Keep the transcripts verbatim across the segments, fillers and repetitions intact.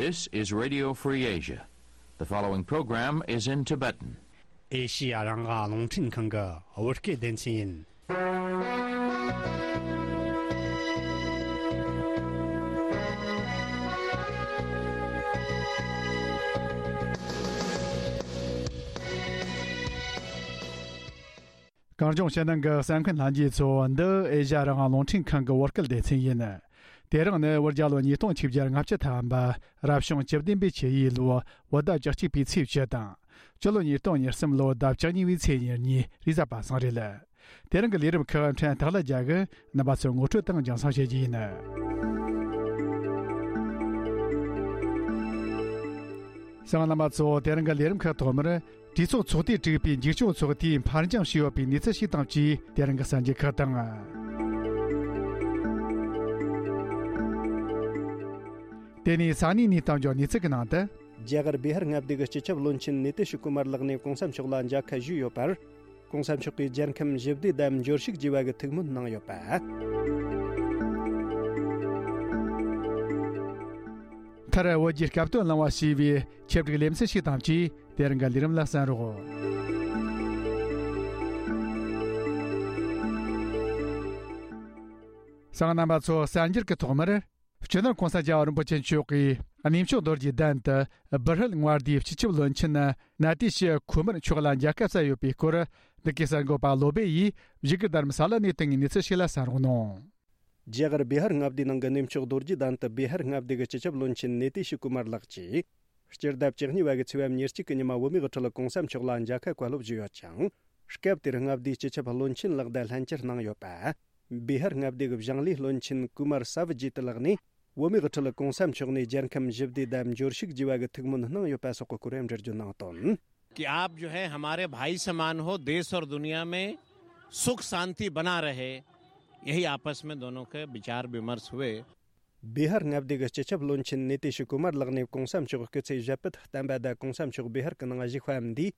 This is Radio Free Asia. The following program is in Tibetan. ཨེ་ཤི་ཡ་རང་དབང་རླུང་འཕྲིན་ཁང་གི་བོད་སྐད་སྡེ་ཚན་ཡིན། གངས་ལྗོངས་ཕྱི་ནང་གི་གསན་མཁན་ལྷན་རྒྱས་ཚོ། འདི་ཨེ་ཤ་ཡ་རང་དབང་རླུང་འཕྲིན་ཁང་གི་བོད་སྐད་སྡེ་ཚན་ཡིན། དེ་རིང་ནི་བོད་རྒྱལ་ལོ་ཉིས་སྟོང་ཆིག་བརྒྱ་ལྔ་བཅུ་ཐམ་པ་རབ་བྱུང་བཅུ་བདུན་པའི་ཆུ་ཡོས་ལོ་བོད་ཟླ་བཅུ་གཅིག་པའི་ཚེས་བཅུ་དང་། སྤྱི་ལོ་ཉིས་སྟོང་ཉེར་གསུམ་ལོ་ཟླ་བཅུ་གཉིས་པའི་ཚེས་ཉེར་གཉིས་རེས་གཟའ་པ་སངས་རེད། དེ་རིང་གི་ལས་རིམ་ཁག་ཕྲན་སྟག་ལྷ་རྒྱལ་གྱིས་རྣམ་པ་ཚོར་ངོ་སྤྲོད་དང་རྒྱང་སྲིང་བྱེད་རྒྱུ་ཡིན། གསན་མཁན་རྣམ་པ་ཚོ། དེ་རིང་གི་ལས་རིམ་ཁག་ཐོག་མར། གྲོས་ཚོགས་ཚོགས་སྡེ་དྲུག་པའི་འཛིན་སྐྱོང་ཚོགས་སྡེས་ཕར་འགྱངས་བྱས་ཡོད་པའི་གནས་ཚུལ་ཞིག་དང་བཅས། དེ་རིང་གི་གསར་འགྱུར་ཁག་དང་། དེ་ནས་ས་གནས་གནས་སྟངས་ཀྱི་གནས་ཚུལ་གྱི་ནང་དུ། རྒྱ་གར་བི་ཧར་མངའ་སྡེ་གི་སྤྱི་ཁྱབ་བློན་ཆེན་ནི་ཏི་ཤི་ཀུ་མར་ལགས་ནས་གོང་ས་མཆོག་ལ་མཇལ་ཁ་ཞུས་ཡོད་པར། གོང་ས་མཆོག་གིས་རྒྱལ་ཁམས་ཞི་བདེ་དང་འབྱོར་ཕྱུག་ཅེས་པ་གི་ཐུགས་སྨོན་གནང་ཡོད་པ། མཐར་བོད་ཀྱི་སྐབས་དོན་གླེང་བ་ཞེས་པའི་ཆེད་བསྒྲིགས་ལེ་ཚན་ཞིག་དང་བཅས། དེ་རིང་གི་ལས་རིམ་ལ་གསན་རོགས། གསན་མཁན་རྣམ་པ་ཚོ། གསར་འགྱུར་གྱི་ཐོག་མར། སྤྱི་ནོར་༸གོང་ས་༸རྒྱལ་བ་རིན་པོ་ཆེ་མཆོག་གིས་གནས་མཆོག་རྡོ་རྗེ་གདན་དུ་བི་ཧར་མངའ་སྡེའི་སྤྱི་ཁྱབ་བློན་ཆེན་ནཱ་ཏི་ཤི་ཁུ་མར་མཆོག་ལ་མཇལ་ཁ་བསྩལ་ཡོད་པའི་སྐོར། འདི་གའི་གསར་འགོད་པ་བློ་སྦེ་ཡིས་བཞུགས་སྒར་དྷ་རམ་ས་ལ་ནས་བཏང་བའི་གནས་ཚུལ་ཞིག་ལ་གསན་རོགས་གནང་། རྒྱ་གར་བི་ཧར་མངའ་སྡེའི་ནང་གི་གནས་མཆོག་རྡོ་རྗེ་གདན་དུ་བི་ཧར་མངའ་སྡེ་གི་སྤྱི་ཁྱབ་བློན་ཆེན་ནཱ་ཏི་ཤི་ཀུ་མར་ལགས་ཀྱིས། སྤྱི་ཟླ་བཅུ་གཉིས་པ་གི་ཚེས་པ་ཉེར་གཅིག་གི་ཉི་མ་བོད་མིའི་དབུ་ཁྲིད་ཀོང་ས་མཆོག་ལ་མཇལ་ཁ་བཀའ་སློབ་ཞུས་ཡོད་ཅིང་། སྐབས་དེར་མངའ་སྡེའི་སྤྱི་ཁྱབ་བློན་ཆེན་ལགས་དང་ལྷན་བཅར་གནང་ཡོད་པ། བི་ཧར་མངའ་སྡེ་གི་བཞེངས་ལས་བློན་ཆེན་ཀུ་མར་ས་བི་ཇི་ཏི་ལགས་ནས། བོད་མིའི་དབུ་ཁྲིད་ཀོང་ས་མཆོག་ནས་རྒྱལ་ཁམས་ཞི་བདེ་དང་འབྱོར་ཕྱུག་ཅེས་པ་གི་ཐུགས་སྨོན་གནང་ཡོད་པ་སོགས་ཀྱི་སྐོར་འགྲེལ་བརྗོད་གནང་དོན། कि आप जो है हमारे भाई समान हो, देश और दुनिया में सुख शांति बना रहे, यही आपस में दोनों के विचार विमर्श हुए। བི་ཧར་མངའ་སྡེ་གི་སྤྱི་ཁྱབ་བློན་ཆེན་ནཱ་ཏི་ཤི་ཀུ་མར་ལགས་ནས་གོང་ས་མཆོག་སྐུ་ཚེ་ཞབས་པད་བརྟན་པ་དང་། གོང་ས་མཆོག་བི་ཧར་གྱི་ནང་བཞུགས་པའམ་འདིས་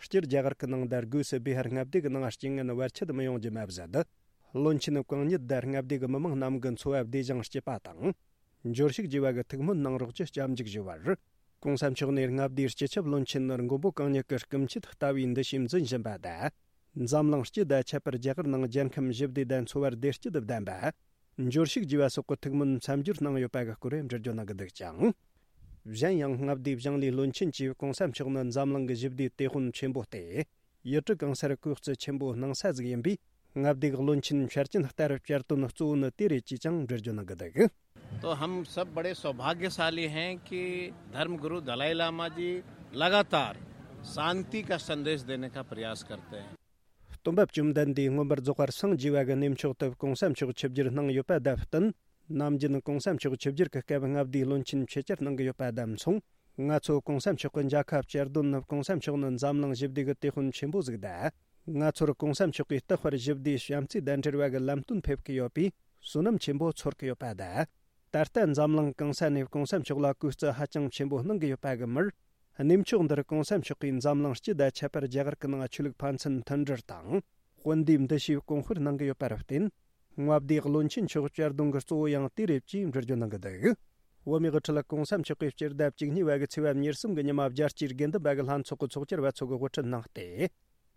སྤྱིར་རྒྱ་གར་གྱི་ནང་དང་། སྒོས་སུ་བི་ཧར་མངའ་སྡེ་གྱི་ནང་རྐྱེན་ངན་བར་ཆད་མི་ཡོང་རྒྱུ་མ་ཟད། བློན་ཆེན་གང་ཉིད་དང་མངའ་སྡེ་གྱི་མི་མང་རྣམས་ཀྱི་འཚོ་བ་བདེ་ཞིང་སྐྱིད་པ་དང་། འབྱོར་ཕྱུག་ཅེས་པ་གི་ཐུགས་སྨོན་གནང་རོགས་ཞེས་སྐྱབས་འཇུག་ཞུས་པར། གོང་ས་མཆོག་ནས་མངའ་སྡེའི་སྤྱི་ཁྱབ་བློན་ཆེན་མགོན་པོ་གང་ཉིད་ཀྱི་སྐུ་མཆེད་ལྟ་བུའི་འདུ་ཤེས་འཛིན་བཞིན་པ་དང་། འཛམ་གླིང་སྤྱི་དང་ཁྱད་པར་རྒྱ་གར་ནང་རྒྱལ་ཁམས་ཞི་བདེ་དང་འཚོ་བ་བདེ་སྐྱིད་ལྡན་པ། འབྱོར་ཕྱུག་ཅེས་པ་སོགས་ཀྱི་ཐུགས་སྨོན་མཚམས་སྦྱོར་གནང་ཡོད་པ་གི་སྐོར་འགྲེལ་བརྗོད་གནང་གི་འདུག་ཅིང་། གཞན་ཡང་མངའ་སྡེའི་བཞེངས་ལས་བློན་ཆེན་གྱིས་གོང་ས་མཆོག་ནི་འཛམ་གླིང་གི་ཞི་བདེའི་དེད་དཔོན་ཆེན་པོ་སྟེ། ཡུལ་གྲུ་གང་སར་གོག་རྩི་ཆེན་པོ་སྣང་ས་ཟིག་ཡིན་པས། མངའ་སྡེའི་བློན་ཆེན་འཆར་ཅན་ལྟར་བསྐྱར་དོན་གཙོ་བོ་ནི་དེ་རེད་ཅེས་ཀྱང་འགྲེལ་བརྗོད་གནང་གི་འདུག། तो हम सब बड़े सौभाग्यशाली हैं कि धर्म गुरु दलाई लामा जी लगातार शांति का संदेश देने का प्रयास करते हैं। སྟོན་པ་བཅོམ་ལྡན་འདས་མངོན་པར་རྫོགས་པར་སངས་རྒྱས་པ་གི་གནས་མཆོག་ཏུ་གོང་ས་མཆོག་ཆིབས་བསྒྱུར་གནང་ཡོད་པ་དང་བསྟུན། ནམ་རྒྱུན་གོང་ས་མཆོག་ཆིབས་བསྒྱུར་གྱི་སྐབས་མངའ་སྡེའི་བློན་ཆེན་ཆེད་བཅར་གནང་གི་ཡོད་པ་དང་མཚུངས། ང་ཚོ་གོང་ས་མཆོག་གི་མཇལ་ཁ་བསྐྱར་དོན་ནི་གོང་ས་མཆོག་ནི་འཛམ་གླིང་ཞི་བདེ་གི་དེད་དཔོན་ཆེན་པོ་ཟིག་དང་། ང་ཚོར་གོང་ས་མཆོག་གིས་རྟག་པར་ཞི་བདེ་བྱམས་བརྩེ་དང་འབྲེལ་བ་གི་ལམ་སྟོན་ཕེབས་ཀྱི་ཡོད་པས་བསོད་ནམས་ཆེན་པོ་ཚོར་གྱི་ཡོད་པ་དང་། ད་ལྟ་འཛམ་གླིང་གང་ས་ནས་གོང་ས་མཆོག་ལ་གུས་བརྩི་ཧ་ཅང་ཆེན་པོ་གནང་གི་ཡོད་པ་གི་མུར། གནས་མཆོག་འདིར་གོང་ས་མཆོག་གིས་འཛམ་གླིང་སྤྱི་དང་ཁྱད་པར་རྒྱ་གར་གྱི་ནང་ཆོས་ལུགས་ཕན་ཚུན་མཐུན་སྒྲིལ་དང་། དཔུང་སྡེའི་འདུ་ཤེས་གོང་སྤེལ་གནང་གི་ཡོད་པར་བརྟེན། མངའ་སྡེའི་བློན་ཆེན་མཆོག་བསྐྱར་དོན་གྱི་གཙོ་བོ་ཡང་དེ་རེད་ཅེས་འགྲེལ་བརྗོད་གནང་གི་འདུག། བོད་མིའི་དབུ་ཁྲིད་གོང་ས་མཆོག་གིས་སྤྱི་ཟླ་བཅུ་གཉིས་པ་གི་ཚེས་པ་ཉེར་གསུམ་གྱི་ཉི་མ་རྒྱལ་སྤྱིའི་དགེ་འདུན་པ་གི་ལྷན་ཚོགས་ཀྱི་ཚོགས་བཅར་བ་ཚོ་གི་དབུ་ཁྲིད་གནང་སྟེ།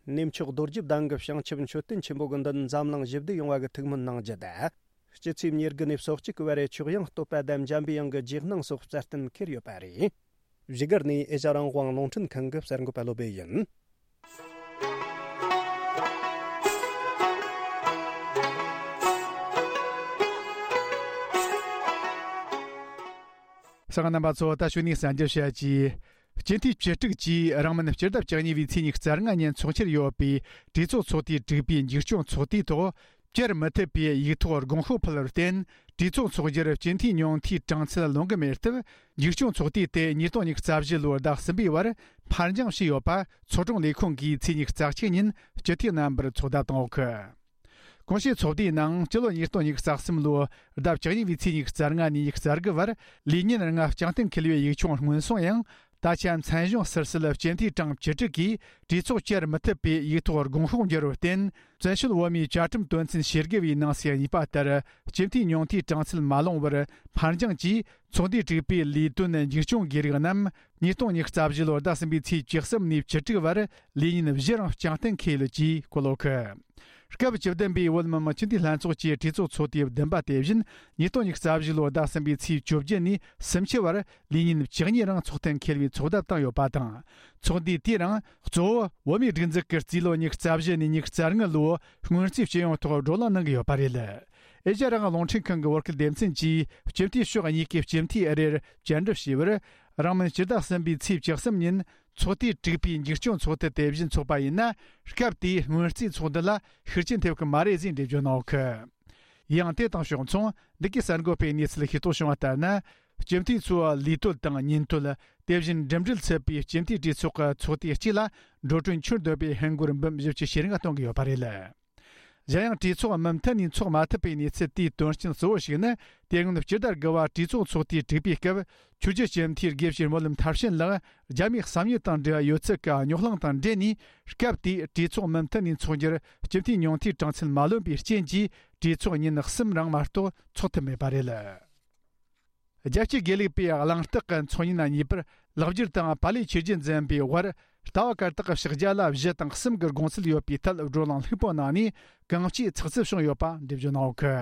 གནས་མཆོག་རྡོ་རྗེ་གདན་གྱི་བྱང་ཆུབ་མཆོད་རྟེན་ཆེན་པོ་གི་མདུན་འཛམ་གླིང་ཞི་བདེ་ཡོང་བ་གི་ཐུགས་སྨོན་གནང་རྒྱུ་དང་། སྤྱི་ཚེས་ཉེར་དགུ་ནས་སོ་གཅིག་གི་བར་རེ་མཆོག་དབྱངས་བསྟོད་པ་དང་འཇམ་པའི་དབྱངས་ཀྱི་རྗེས་གནང་སོགས་རྩ་བསྟན་འཁེལ་ཡོད་པ་རེད། བཞུགས་སྒར་ནས་ཨེ་ཤ་ཡ་རང་དབང་རླུང་འཕྲིན་ཁང་གི་གསར་འགོད་པ་བློ་སྦེ་ཡིན། གསན་མཁན་རྣམ་པ་ཚོ། ད་གཞུག་ནས་གསར་འགྱུར་བཤད་ཀྱིས། སྤྱི་འཐུས་བཅུ་དྲུག་གིས་རིང་མིན་སྤྱི་ཟླ་བཅུ་གཉིས་པའི་ཚེས་ཉི་ཤུ་རྩ་ལྔ་ཉིན་འཚོགས་འཆར་ཡོད་པའི་གྲོས་ཚོགས་ཚོགས་དུས་དྲུག་པའི་འཛིན་སྐྱོང་ཚོགས་དུས་ཐོག་བསྐྱར་མི་ཐུབ་པའི་ཡིག་ཐོག་དགོངས་ཤོག་ཕུལ་བར་བརྟེན། གྲོས་ཚོགས་འཚོགས་རྒྱུར་སྤྱི་འཐུས་ཉུང་མཐའི་གྲངས་ཚད་ལོན་གྱི་མེད་སྟབས། འཛིན་སྐྱོང་ཚོགས་དུས་དེ་ཉིས་སྟོང་ཉི་ཤུ་རྩ་བཞི་ལོའི་ཟླ་གསུམ་པའི་བར་ཕར་འགྱངས་བྱས་ཡོད་པ་ཚོགས་དྲུང་ལས་ཁུངས་ཀྱིས་ཚེས་ཉི་ཤུ་རྩ་གཅིག་ཉིན་སྤྱི་འཐུས་རྣམ་པར་ཚོད་ལྟ་བཏང་ཡོད་གི། གོང་ཞུས་ཚོགས་དུས་ནང་སྤྱི་ལོ་ཉིས་སྟོང་ཉི་ཤུ་རྩ་གསུམ་ལོའི་ཟླ་བཅུ་གཉིས་པའི་ཚེས་ཉི་ཤུ་རྩ་ལྔ་ནས་ཉི་ཤུ་རྩ་དགུ་བར་ལས་ཉིན་ལྔ་བསྐྱངས་གཏན་འཁེལ་བའི་ཡིག་ཆུང་སྔོན་སོང་ཡང་། ད་ཆ་མཚན་གཞུང་ཟུར་ཟུར་ལ་སྤྱི་འཐུས་གྲངས་བཅུ་དྲུག་གིས་གྲོས་ཚོགས་བསྐྱར་མི་ཐུབ་པའི་ཡིག་ཐོག་དགོངས་ཤོག་འབྱོར་བར་བརྟེན། བཙན་བྱོལ་བོད་མིའི་བཅའ་ཁྲིམས་དོན་ཚན་ཞེ་དགུ་བའི་ནང་གསེས་གཉིས་པ་ལྟར་སྤྱི་འཐུས་ཉུང་མཐའི་གྲངས་ཚད་མ་ལོངས་པར་ཕར་འགྱངས་ཀྱིས། ཚོགས་འདུས་དྲུག་པའི་ལས་དོན་འཇིགས་སྐྱོང་གི་རིགས་རྣམས་ཉིས་སྟོང་ཉི་ཤུ་རྩ་བཞི་ལོར་ཟླ་གསུམ་པའི་ཚེས་བཅུ་གསུམ་ནས་བཅུ་དྲུག་བར་ལས་ཉིན་བཞི་རིང་རྐྱང་གཏན་འཁེལ་ཡོད་ཅེས་བཀོད་ཡོད་གི། སྐབས་བཅུ་བདུན་པའི་བོད་མི་མང་སྤྱི་འཐུས་ལྷན་ཚོགས་ཀྱི་གྲོས་ཚོགས་ཚོགས་དུས་བདུན་པ་དེ་བཞིན་ཉིས་སྟོང་ཉི་ཤུ་རྩ་བཞི་ལོའི་ཟླ་གསུམ་པའི་ཚེས་བཅོ་བརྒྱད་ནས་སུམ་ཅུ་བར་ལས་ཉིན་བཅུ་གཉིས་རིང་ཚོགས་གཏན་འཁེལ་བའི་ཚོགས་བརྡ་བཏང་ཡོད་པ་དང་། ཚོགས་འདུས་དེ་རིང་གཙོ་བོ་བོད་མིའི་སྒྲིག་འཛུགས་ཀྱི་རྩིས་ལོ་ཉི་ཤུ་རྩ་བཞི་ནས་ཉི་ཤུ་རྩ་ལྔ་ལོའི་སྔོན་རྩིས་སྤྱི་ཡོངས་ཐོག་བགྲོ་གླེང་གནང་གི་ཡོད་པ་རེད། ཨེ་ཤ་ཡ་རང་དབང་རླུང་འཕྲིན་ཁང་གི་བོད་སྐད་སྡེ་ཚན་གྱིས་སྤྱི་འཐུས་ཕྱོགས་གཉིས་ཀྱི་སྤྱི་འཐུས་ཨ་རིར་བཅར་འདྲི་ཞུས་པར། རིང་མིན་སྤྱི་ཟླ་གསུམ་པའི་ཚེས་བཅུ་གསུམ་ཉིན་ཚོགས་དུས་དྲུག་པའི་འཇིགས་སྐྱོང་ཚོགས་འདུ་དེ་བཞིན་འཚོགས་པ་ཡིན་ན། སྐབས་དེའི་སྔོན་རྩིས་ཚོགས་འདུ་ལ་ཤུགས་རྐྱེན་ཐེབས་ཀྱི་མ་རེད་ཟེར་འགྲེལ་བརྗོད་གནང་ཡོད་གི། ཡང་དེ་དང་ཕྱོགས་མཚུངས་འདི་གའི་གསར་འགོད་པའི་གནས་ཚུལ་ཤེས་རྟོགས་བྱུང་བ་ལྟར་ན། སྤྱི་འཐུས་ཚོའི་ལས་དོན་དང་ཉིན་དོན། དེ་བཞིན་འགྲིམ་འགྲུལ་ཚུད་པའི་སྤྱི་འཐུས་གྲོས་ཚོགས་ཀྱི་ཚོགས་དུས་གཅིག་ལ་འགྲོ་གྲོན་ཁྱོན་བསྡོམས་པའི་ཧིན་སྒོར་འབུམ་བཞི་བཅུ་ཞེ་ལྔ་གཏོང་གི་ཡོད་པ་རེད། གཞན་ཡང་གྲོས་ཚོགས་མུ་མཐུད་ནས་འཚོགས་མ་ཐུབ་པའི་གནས་ཚུལ་དེའི་དོན་རྐྱེན་གཙོ་བོ་ཞིག་ནི། དེ་སྔོན་སྤྱི་ཟླ་དགུ་བ་གྲོས་ཚོགས་ཚོགས་དུས་དྲུག་པའི་སྐབས། ཆོས་རྒྱུད་སྤྱི་འཐུས་དགེ་བཤེས་སྨོན་ལམ་མཐར་ཕྱིན་ལགས་རྒྱ་མིའི་གསང་ཉུལ་དང་འབྲེལ་བ་ཡོད་ཚུལ་གྱི་རྙོག་གླེང་དང་འབྲེལ་ནས། སྐབས་དེའི་གྲོས་ཚོགས་མུ་མཐུད་ནས་འཚོགས་རྒྱུར་སྤྱི་འཐུས་ཉུང་མཐའི་གྲངས་ཚད་མ་ལོན་པའི་རྐྱེན་གྱིས། གྲོས་ཚོགས་ཉིན་གསུམ་རིང་མ་གཏོགས་འཚོགས་ཐུབ་མེད་པ་རེད། རྒྱལ་སྤྱིའི་དགེ་ལུགས་པའི་གླེང་སྟེགས་ཀྱི་ཚོགས་ཉིན་གཉིས་པར་ལེགས་སྒྱུར་དང་པཱ་ལིའི་ཆོས་བརྒྱུད་འཛིན་པའི་དབར་ལྟ་བ་བཀར་སྟེགས་ཀྱི་ཕྱག་རྒྱ་ལ་གཞི་དང་གསུམ་གྱི་དགོངས་ཚུལ་ཡོད་པའི་ཐད་བགྲོ་གླེང་ལྷུག་པོ་གནང་ནས་གང་ཅིའི་ཚགས་ཚུད་བྱུང་ཡོད་པ་འགྲེལ་བརྗོད་གནང་ཡོད་གི།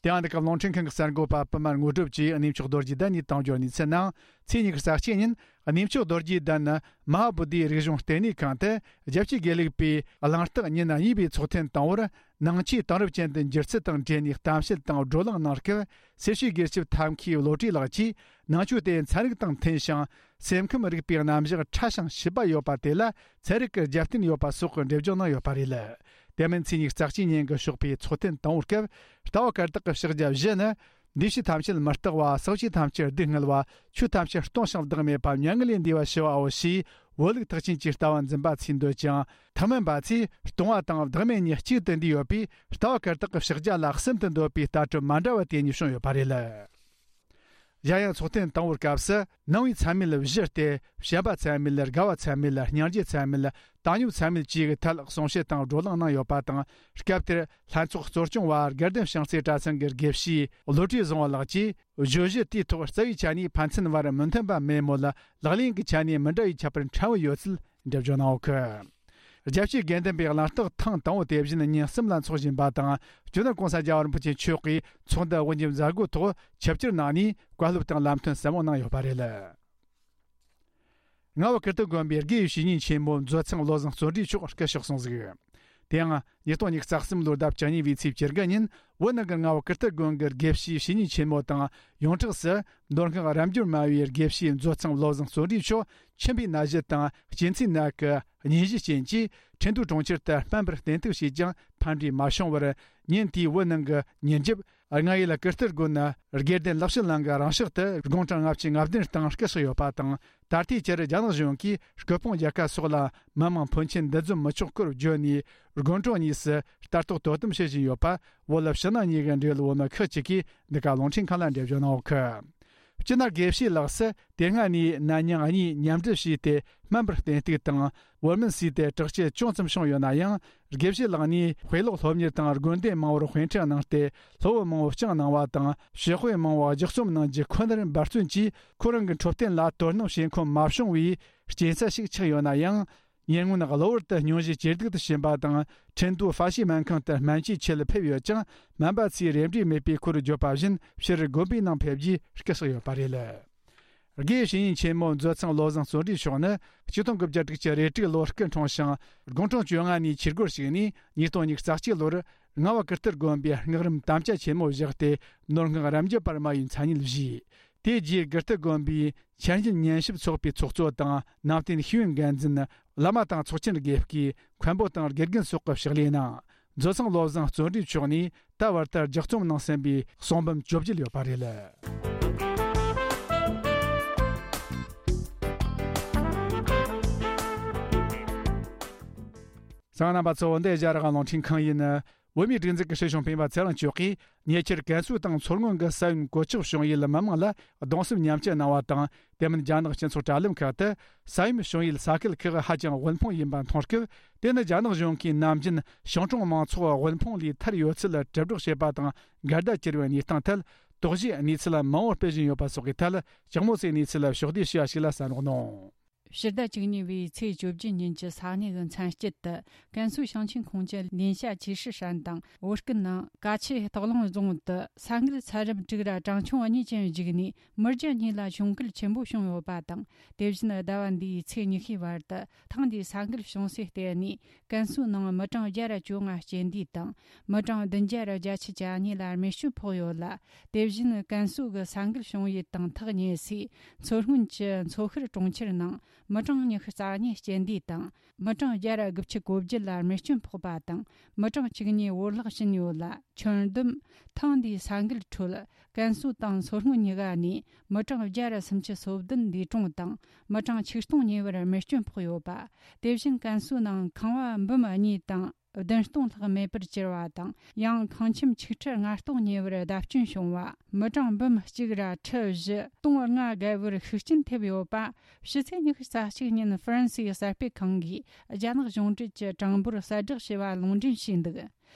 དེ་ཡང་འདི་ག་རླུང་འཕྲིན་ཁང་གི་གསར་འགོད་པ་པུ་མ་དངོས་གྲུབ་ཀྱིས་གནས་མཆོག་རྡོ་རྗེ་གདན་ནས་བཏང་རྒྱུའི་གནས་ཚུལ་ནང་ཚེས་ཉི་ཤུ་རྩ་གཅིག་ཉིན་གནས་མཆོག་རྡོ་རྗེ་གདན་མ་ཧཱ་བོ་དྷིའི་རིག་གཞུང་ལྟེ་གནས་ཁང་དུ་རྒྱལ་སྤྱིའི་དགེ་ལུགས་པའི་གླེང་སྟེགས་ཉིན་གཉིས་པའི་ཚོགས་ཐེངས་དང་པོར། ནང་ཆོས་དེང་རབས་ཅན་དུ་འགྱུར་ཚུལ་དང་འབྲེལ་ནས་གཏམ་བཤད་དང་བགྲོ་གླེང་གནང་སྐབས། སེར་བྱེས་དགེ་ཆེ་ཐབས་མཁས་བློ་གྲོས་ལགས་ཀྱིས་ནང་ཆོས་དེ་ཚན་རིག་དང་མཐུན་ཞིང་སེམས་ཁམས་རིག་པའི་རྣམ་གཞག་ཕྲ་ཞིང་ཞིབ་པ་ཡོད་པ་དེ་ལ་ཚན་རིག་གི་རྒྱབ་རྟེན་ཡོད་པ་སོགས་ཀྱི་འགྲེལ་བརྗོད་གནང་ཡོད་པ་རེད། དེ་མིན་ཚེས་ཉི་ཤུ་རྩ་གཅིག་ཉིན་གྱི་ཞོགས་པའི་ཚོགས་ཐེངས་དང་པོའི་སྐབས། ལྟ་བ་བཀར་སྟེགས་ཀྱི་ཕྱག་རྒྱ་བཞི་ནི། འདུས་བྱས་ཐམས་ཅད་མི་རྟག་པ། ཟག་བཅས་ཐམས་ཅད་སྡུག་བསྔལ་བ། ཆོས་ཐམས་ཅད་སྟོང་ཞིང་བདག་མེད་པ། མྱ་ངན་ལས་འདས་པ་ཞི་བའོ་ཞེས། བོད་ལུགས་ཐེག་ཆེན་གྱི་ལྟ་བ་འཛིན་པ་ཚོས་འདོད་ཅིང་། ཐུན་མིན་པ་ཚོས་སྟོང་བ་དང་བདག་མེད་གཉིས་གཅིག་ཏུ་འདུས་ཡོད་པས། ལྟ་བ་བཀར་སྟེགས་ཀྱི་ཕྱག་རྒྱ་ལ་གསུམ་དུ་འདོད་པའི་ལྟ་གྲུབ་མ་འདྲ་བ་དེ་གཉིས་བྱུང་ཡོད་པ་རེད། གཞན་ཡང་ཚོགས་ཐེངས་དང་པོའི་སྐབས་སུ་ནང་པའི་ཚད་མེད་བཞི་སྟེ། བྱམས་པ་ཚད་མེད། དགའ་བ་ཚད་མེད། སྙིང་རྗེ་ཚད་མེད། བཏང་སྙོམས་ཚད་མེད་བཅས་ཀྱི་ཐད་གསུང་བཤད་དང་བགྲོ་གླེང་གནང་ཡོད་པ་དང་། སྐབས་དེར་ལྷན་ཚོགས་གཙོ་སྐྱོང་བ་དགའ་ལྡན་བྱང་རྩེ་གྲྭ་ཚང་གི་དགེ་བཤེས་བློ་གྲོས་བཟང་བོ་ལགས་ཀྱིས། བརྗོད་གཞི་དེའི་ཐོག་རྩ་བའི་ཆ་ནས་ཕན་ཚུན་བར་མི་མཐུན་པ་མེད་མོད། ལག་ལེན་གྱི་ཆ་ནས་མི་འདྲ་བའི་ཁྱད་པར་ཕྲན་བུ་ཡོད་ཚུལ་འགྲེལ་བརྗོད་གནང་ཡོད་གི། རྒྱལ་སྤྱིའི་དགེ་ལྡན་པའི་གླེང་སྟེགས་ཐེངས་དང་པོ་དེ་བཞིན་ཉིན་གསུམ་ལ་འཚོགས་བཞིན་པ་དང་། སྤྱི་ནོར་༸གོང་ས་༸རྒྱལ་བ་རིན་པོ་ཆེ་མཆོག་གིས་ཚོགས་འདུ་དབུ་འབྱེད་མཛད་སྒོའི་ཐོག་ཆིབས་བསྒྱུར་གནང་ནས་བཀའ་སློབ་དང་ལམ་སྟོན་ཟབ་མོ་གནང་ཡོད་པ་རེད། རྔ་བ་ཀིརྟི་དགོན་པའི་དགེ་བའི་བཤེས་གཉེན་ཆེན་མོ་མཛོད་ཚང་བློ་བཟང་བརྩོན་འགྲུས་མཆོག་སྐུ་གཤེགས་སོང་ཟིག། དེ་ཡང་ཉིས་སྟོང་ཉི་ཤུ་རྩ་གསུམ་ལོའི་ཟླ་བཅུ་གཉིས་པའི་ཚེས་བཅུ་དགུ་ཉིན་བོད་ནང་གི་རྔ་བ་ཀིརྟི་དགོན་གྱི་དགེ་བཤེས་བཤེས་གཉེན་ཆེན་མོ་དང་ཡོངས་གྲགས་སུ་མདོ་སྔགས་རབ་འབྱམས་སྨྲ་བའི་དགེ་བཤེས་མཛོད་ཚང་བློ་བཟང་བརྩོན་འགྲུས་མཆོག་མཆིན་པའི་ན་གཞི་དང་གཅིན་ཚའི་ནད་ཀྱི་གཉན་གཞིའི་རྐྱེན་གྱིས་ཁྲིན་ཏུའུ་གྲོང་ཁྱེར་དུ་སྨན་པར་བསྟེན་གཏུགས་བྱས་ཀྱང་ཕན་འབྲས་མ་བྱུང་བར་ཉིན་དེའི་བོད་ནང་གི་ཉིན་རྒྱབ། རྔ་ཡུལ་ཀིརྟི་དགོན་ན་དགེ་ལྡན་ལེགས་བཤད་གླིང་གི་རང་ཕྱོགས་དུ་དགུང་གྲངས་ལྔ་བཅུ་ང་བདུན་སྟེང་སྐུ་གཤེགས་ཡོད་པ་དང་། ད་ལྟའི་ཆར་རྒྱ་ནག་གཞུང་གིས་སྐུ་ཕུང་རྒྱལ་ཁ་སོགས་ལ་མི་མང་ཕོན་ཆེན་འདུ་འཛོམས་མི་ཆོག་སྐོར་བརྗོད་ནས། དགོན་གྲོང་གཉིས་སུ་ལྟ་རྟོག་དོ་དམ་བྱེད་བཞིན་ཡོད་པ། བོད་ཕྱི་ནང་གཉིས་ཀྱི་འབྲེལ་ཡོད་བོད་མི་ཁག་ཅིག་གིས་འདི་ག་རླུང་འཕྲིན་ཁང་ལ་འགྲེལ་བརྗོད་གནང་ཡོད་གི། སྤྱིར་ན་དགེ་བཤེས་ལགས་སུ་དེ་སྔ་ནས་ནད་མྱང་གཉིས་མཉམ་འབྲེལ་བྱས་ཏེ་སྨན་པར་བསྟེན་གཏུགས་དང་། བོར་སྨན་ཟོས་ཏེ་དྲག་སྐྱེད་ཅུང་ཙམ་བྱུང་ཡོད་ན་ཡང་། དགེ་བཤེས་ལགས་ནས་དཔེ་ཀློག་སློབ་གཉེར་དང་དགོན་སྡེ་མང་བོར་དཔེ་ཁྲིད་གནང་སྟེ། སློབ་བུ་མང་བོ་བསྐྱངས་གནང་བ་དང་། ཞི་དཔེ་མང་བོ་ལྗགས་རྩོམ་གནང་རྒྱུ་ཁོ་ནར་འབད་བརྩོན་གྱིས། ཁོ་རང་གི་འཕྲོད་བསྟེན་ལ་དོ་སྣང་བྱེད་ཁོམ་མ་བྱུང་བའི་རྐྱེན་རྩ་ཞིག་ཆགས་ཡོད་ན་ཡང་། ཉེ་སྔོན་གློ་བུར་དུ་སྙུང་གཞི་ཇེ་སྡུག་ཏུ་ཕྱིན་པ་དང་། ཁྲིན་ཏུའུ་ཧྥ་ཤི་སྨན་ཁང་དུ་སྨན་བཅོས་ཆེད་ཕེབས་ཡོད་ཀྱང་། སྨན་པ་ཚོས་རེ་འབྲས་མེད་པའི་སྐོར་བརྗོད་པ་བཞིན། ཕྱིར་དགོན་པའི་ནང་ཕེབས་རྗེས་སྐུ་གཤེགས་ཡོད་པ་རེད། དགེ་བཤེས་གཉེན་ཆེན་མོ་མཛོད་ཚང་བློ་བཟང་བརྩོན་འགྲུས་མཆོག་ནི་ཆིག་སྟོང་དགུ་བརྒྱ་དྲུག་ཅུ་རེ་དྲུག་ལོར་སྐུ་འཁྲུངས་ཤིང་། དགུང་གྲངས་བཅོ་ལྔ་ནས་ཆོས་སྒོར་ཞུགས་ནས། ཉིས་སྟོང་ཉི་ཤུ་རྩ་གཅིག་ལོར་རྔ་བ་ཀིརྟི་དགོན་པའི་སྔགས་རིམ་དམ་བཅའ་ཆེན་མོ་བཞག་སྟེ། ནོར་སྔགས་རབ་འབྱམས་པར་མ་ཡི་མཚན་སྙན་བཞེས། དེ་རྗེས་ཀིརྟི་དགོན་པའི་འཆར་ཉན་ཉན་ཞིབ་ཚོགས་པའི་ཚོགས་གཙོ་དང་། ནང་བསྟན་ཤེས་ཡོན་འགན་འཛིན། བླ་མ་དང་ཚོགས་ཆེན་དགེ་བསྐོས། མཁན་པོ་དང་དགེ་རྒན་སོགས་ཀྱི་ཕྱག་ལས་གནང་། མཛོད་ཚང་བློ་བཟང་བརྩོན་འགྲུས་མཆོག་ནས་ད་བར་དུ་ལྗགས་རྩོམ་གནང་ཟིན་པའི་གསུང་འབུམ་བཅོ་བརྒྱད་ཡོད་པ་རེད། གསན་མཁན་རྣམ་པ་ཚོ། འདི་ཨེ་ཤ་ཡ་རང་དབང་རླུང་འཕྲིན་ཁང་ཡིན། བོད་མིའི་སྒྲིག་འཛུགས་ཀྱི་སྲིད་སྐྱོང་སྤེན་པ་ཚེ་རིང་མཆོག་གིས་ཉེ་ཆར་ཀན་སུའུ་དང་མཚོ་སྔོན་གྱི་ས་ཡོམ་གོད་ཆག་བྱུང་ཡུལ་མི་མང་ལ་གདུང་སེམས་མཉམ་སྐྱེད་གནང་བ་དང་། དེ་མིན་རྒྱ་ནག་སྤྱི་ཚོགས་དྲ་ལམ་ཁག་ཏུ་ས་ཡོམ་བྱུང་ཡུལ་ས་ཁུལ་ཁག་ཧ་ཅང་དབུལ་ཕོངས་ཡིན་པ་མཐོང་སྐབས། དེ་ནི་རྒྱ་ནག་གཞུང་གིས་ནམ་རྒྱུན་ཞིང་གྲོང་མང་ཚོགས་དབུལ་ཕོངས་ལས་ཐར་ཡོད་ཚུལ་དྲིལ་བསྒྲགས་བྱེད་པ་དང་འགལ་ཟླ་གྱུར་བའི་གནས་སྟངས་ཐད། དོགས་གཞིའི་གནས་ཚུལ་མང་པོ་སྤེལ་བཞིན་ཡོད་པ་སོགས་ཀྱི་ཐད། ལྕགས་མོ་སའི་གནས་ཚུལ་ཕྱོགས་བསྡུས་ཞུ་བ་ཞིག་ལ་གསན་རོགས་གནང་། ཕྱི་ཟླ་བཅུ་གཉིས་པའི་ཚེས་བཅུ་བཞི་ཉིན་གྱི་ས་གནས་ཀྱི་མཚན་དཀྱིལ་དུ། ཀན་སུའུ་ཞིང་ཆེན་ཁོངས་ཀྱི་ལིན་ཤ་ཆི་ཧྲི་ཧྲན་དང་ཝུ་ཀུན་ནང་ཀ་ཆེ་སྟག་ལུང་རྫོང་དུ་ས་འགུལ་ཚད་རིམ་དྲུག་ར་གྲངས་ཆུང་གཉིས་ཅན་བརྒྱུད་ནས་མི་བརྒྱ་གཉིས་ལ་གྱོང་གུད་ཆེན་པོ་བྱུང་ཡོད་པ་དང་། དེ་བཞིན་ཟླ་བ་འདིའི་ཚེས་ཉི་ཤུའི་བར་དུ་ཐེངས་འདིའི་ས་འགུལ་བྱུང་སའི་ལྟེ་གནས་ཀན་སུའུ་ནང་མི་གྲངས་བརྒྱ་ར་བཅོ་ལྔ་རྐྱེན་འདས་དང་། མི་གྲངས་བདུན་བརྒྱ་ར་བརྒྱད་ཅུ་གྱ་གཉིས་ལ་རྨས་སྐྱོན་ཕོག་ཡོད་ལ། དེ་བཞིན་ཀན་སུའུ་གི་ས་འགུལ་བྱུང་ཡུལ་དང་ཐག་ཉེ་སའི་མཚོ་སྔོན་གྱི་མཚོ་ཤར་གྲོང་ཁྱེར་ནང་མི་གྲངས་ཉི་ཤུ་རྩ་གཉིས་རྐྱེན་འདས་དང་། མི་གྲངས་བརྒྱ་ར་དགུ་བཅུ་གོ་བརྒྱད་ལ་རྨས་སྐྱོན་ཕོག་པ་དང་། མི་གྲངས་བཅུ་གཉིས་བོར་བརླག་ཕྱིན་ཡོད་ལ། ཁྱོན་བསྡོམས་ཐེངས་འདིའི་ས་འགུལ་ཁྲོད་ཀན་སུའུ་དང་མཚོ་སྔོན་གཉིས་ཀ་ནས་མི་གྲངས་བརྒྱ་ར་སུམ་ཅུ་སོ་བདུན་འདས་གྲོངས་དང་། མི་གྲངས་ཆིག་སྟོང་ཉེ་བར་རྨས་སྐྱོན་ཕོག་ཡོད་པ། དེ་བཞིན་ཀན་སུའུ་ནང་ཁང་བ་འབུམ་གཉིས་དང་བདུན་སྟོང་ལྷག་མེད་པར་གྱུར་བ་དང་། ཡང་ཁང་ཁྱིམ་ཆིག་ཁྲི་ལྔ་སྟོང་ཉེ་བར་བརྡབ་སྐྱོན་བྱུང་བ། མི་གྲངས་འབུམ་གཅིག་ར་ཁྲི་བཞི་སྟོང་ལྔ་བརྒལ་བར་ཤུགས་རྐྱེན་ཐེབས་ཡོད་པ། ཕྱི་ཚེས་ཉི་ཤུ་རྩ་གཅིག་ཉིན་ཧྥ་རན་སིའི་གསར་སྤེལ་ཁང་གིས་རྒྱ་ནག་གཞུང་འབྲེལ་གྱི་གྲངས་འབོར་གསལ་བསྒྲགས་བྱས་པ་ལུང་འདྲེན་བྱས་འདུག།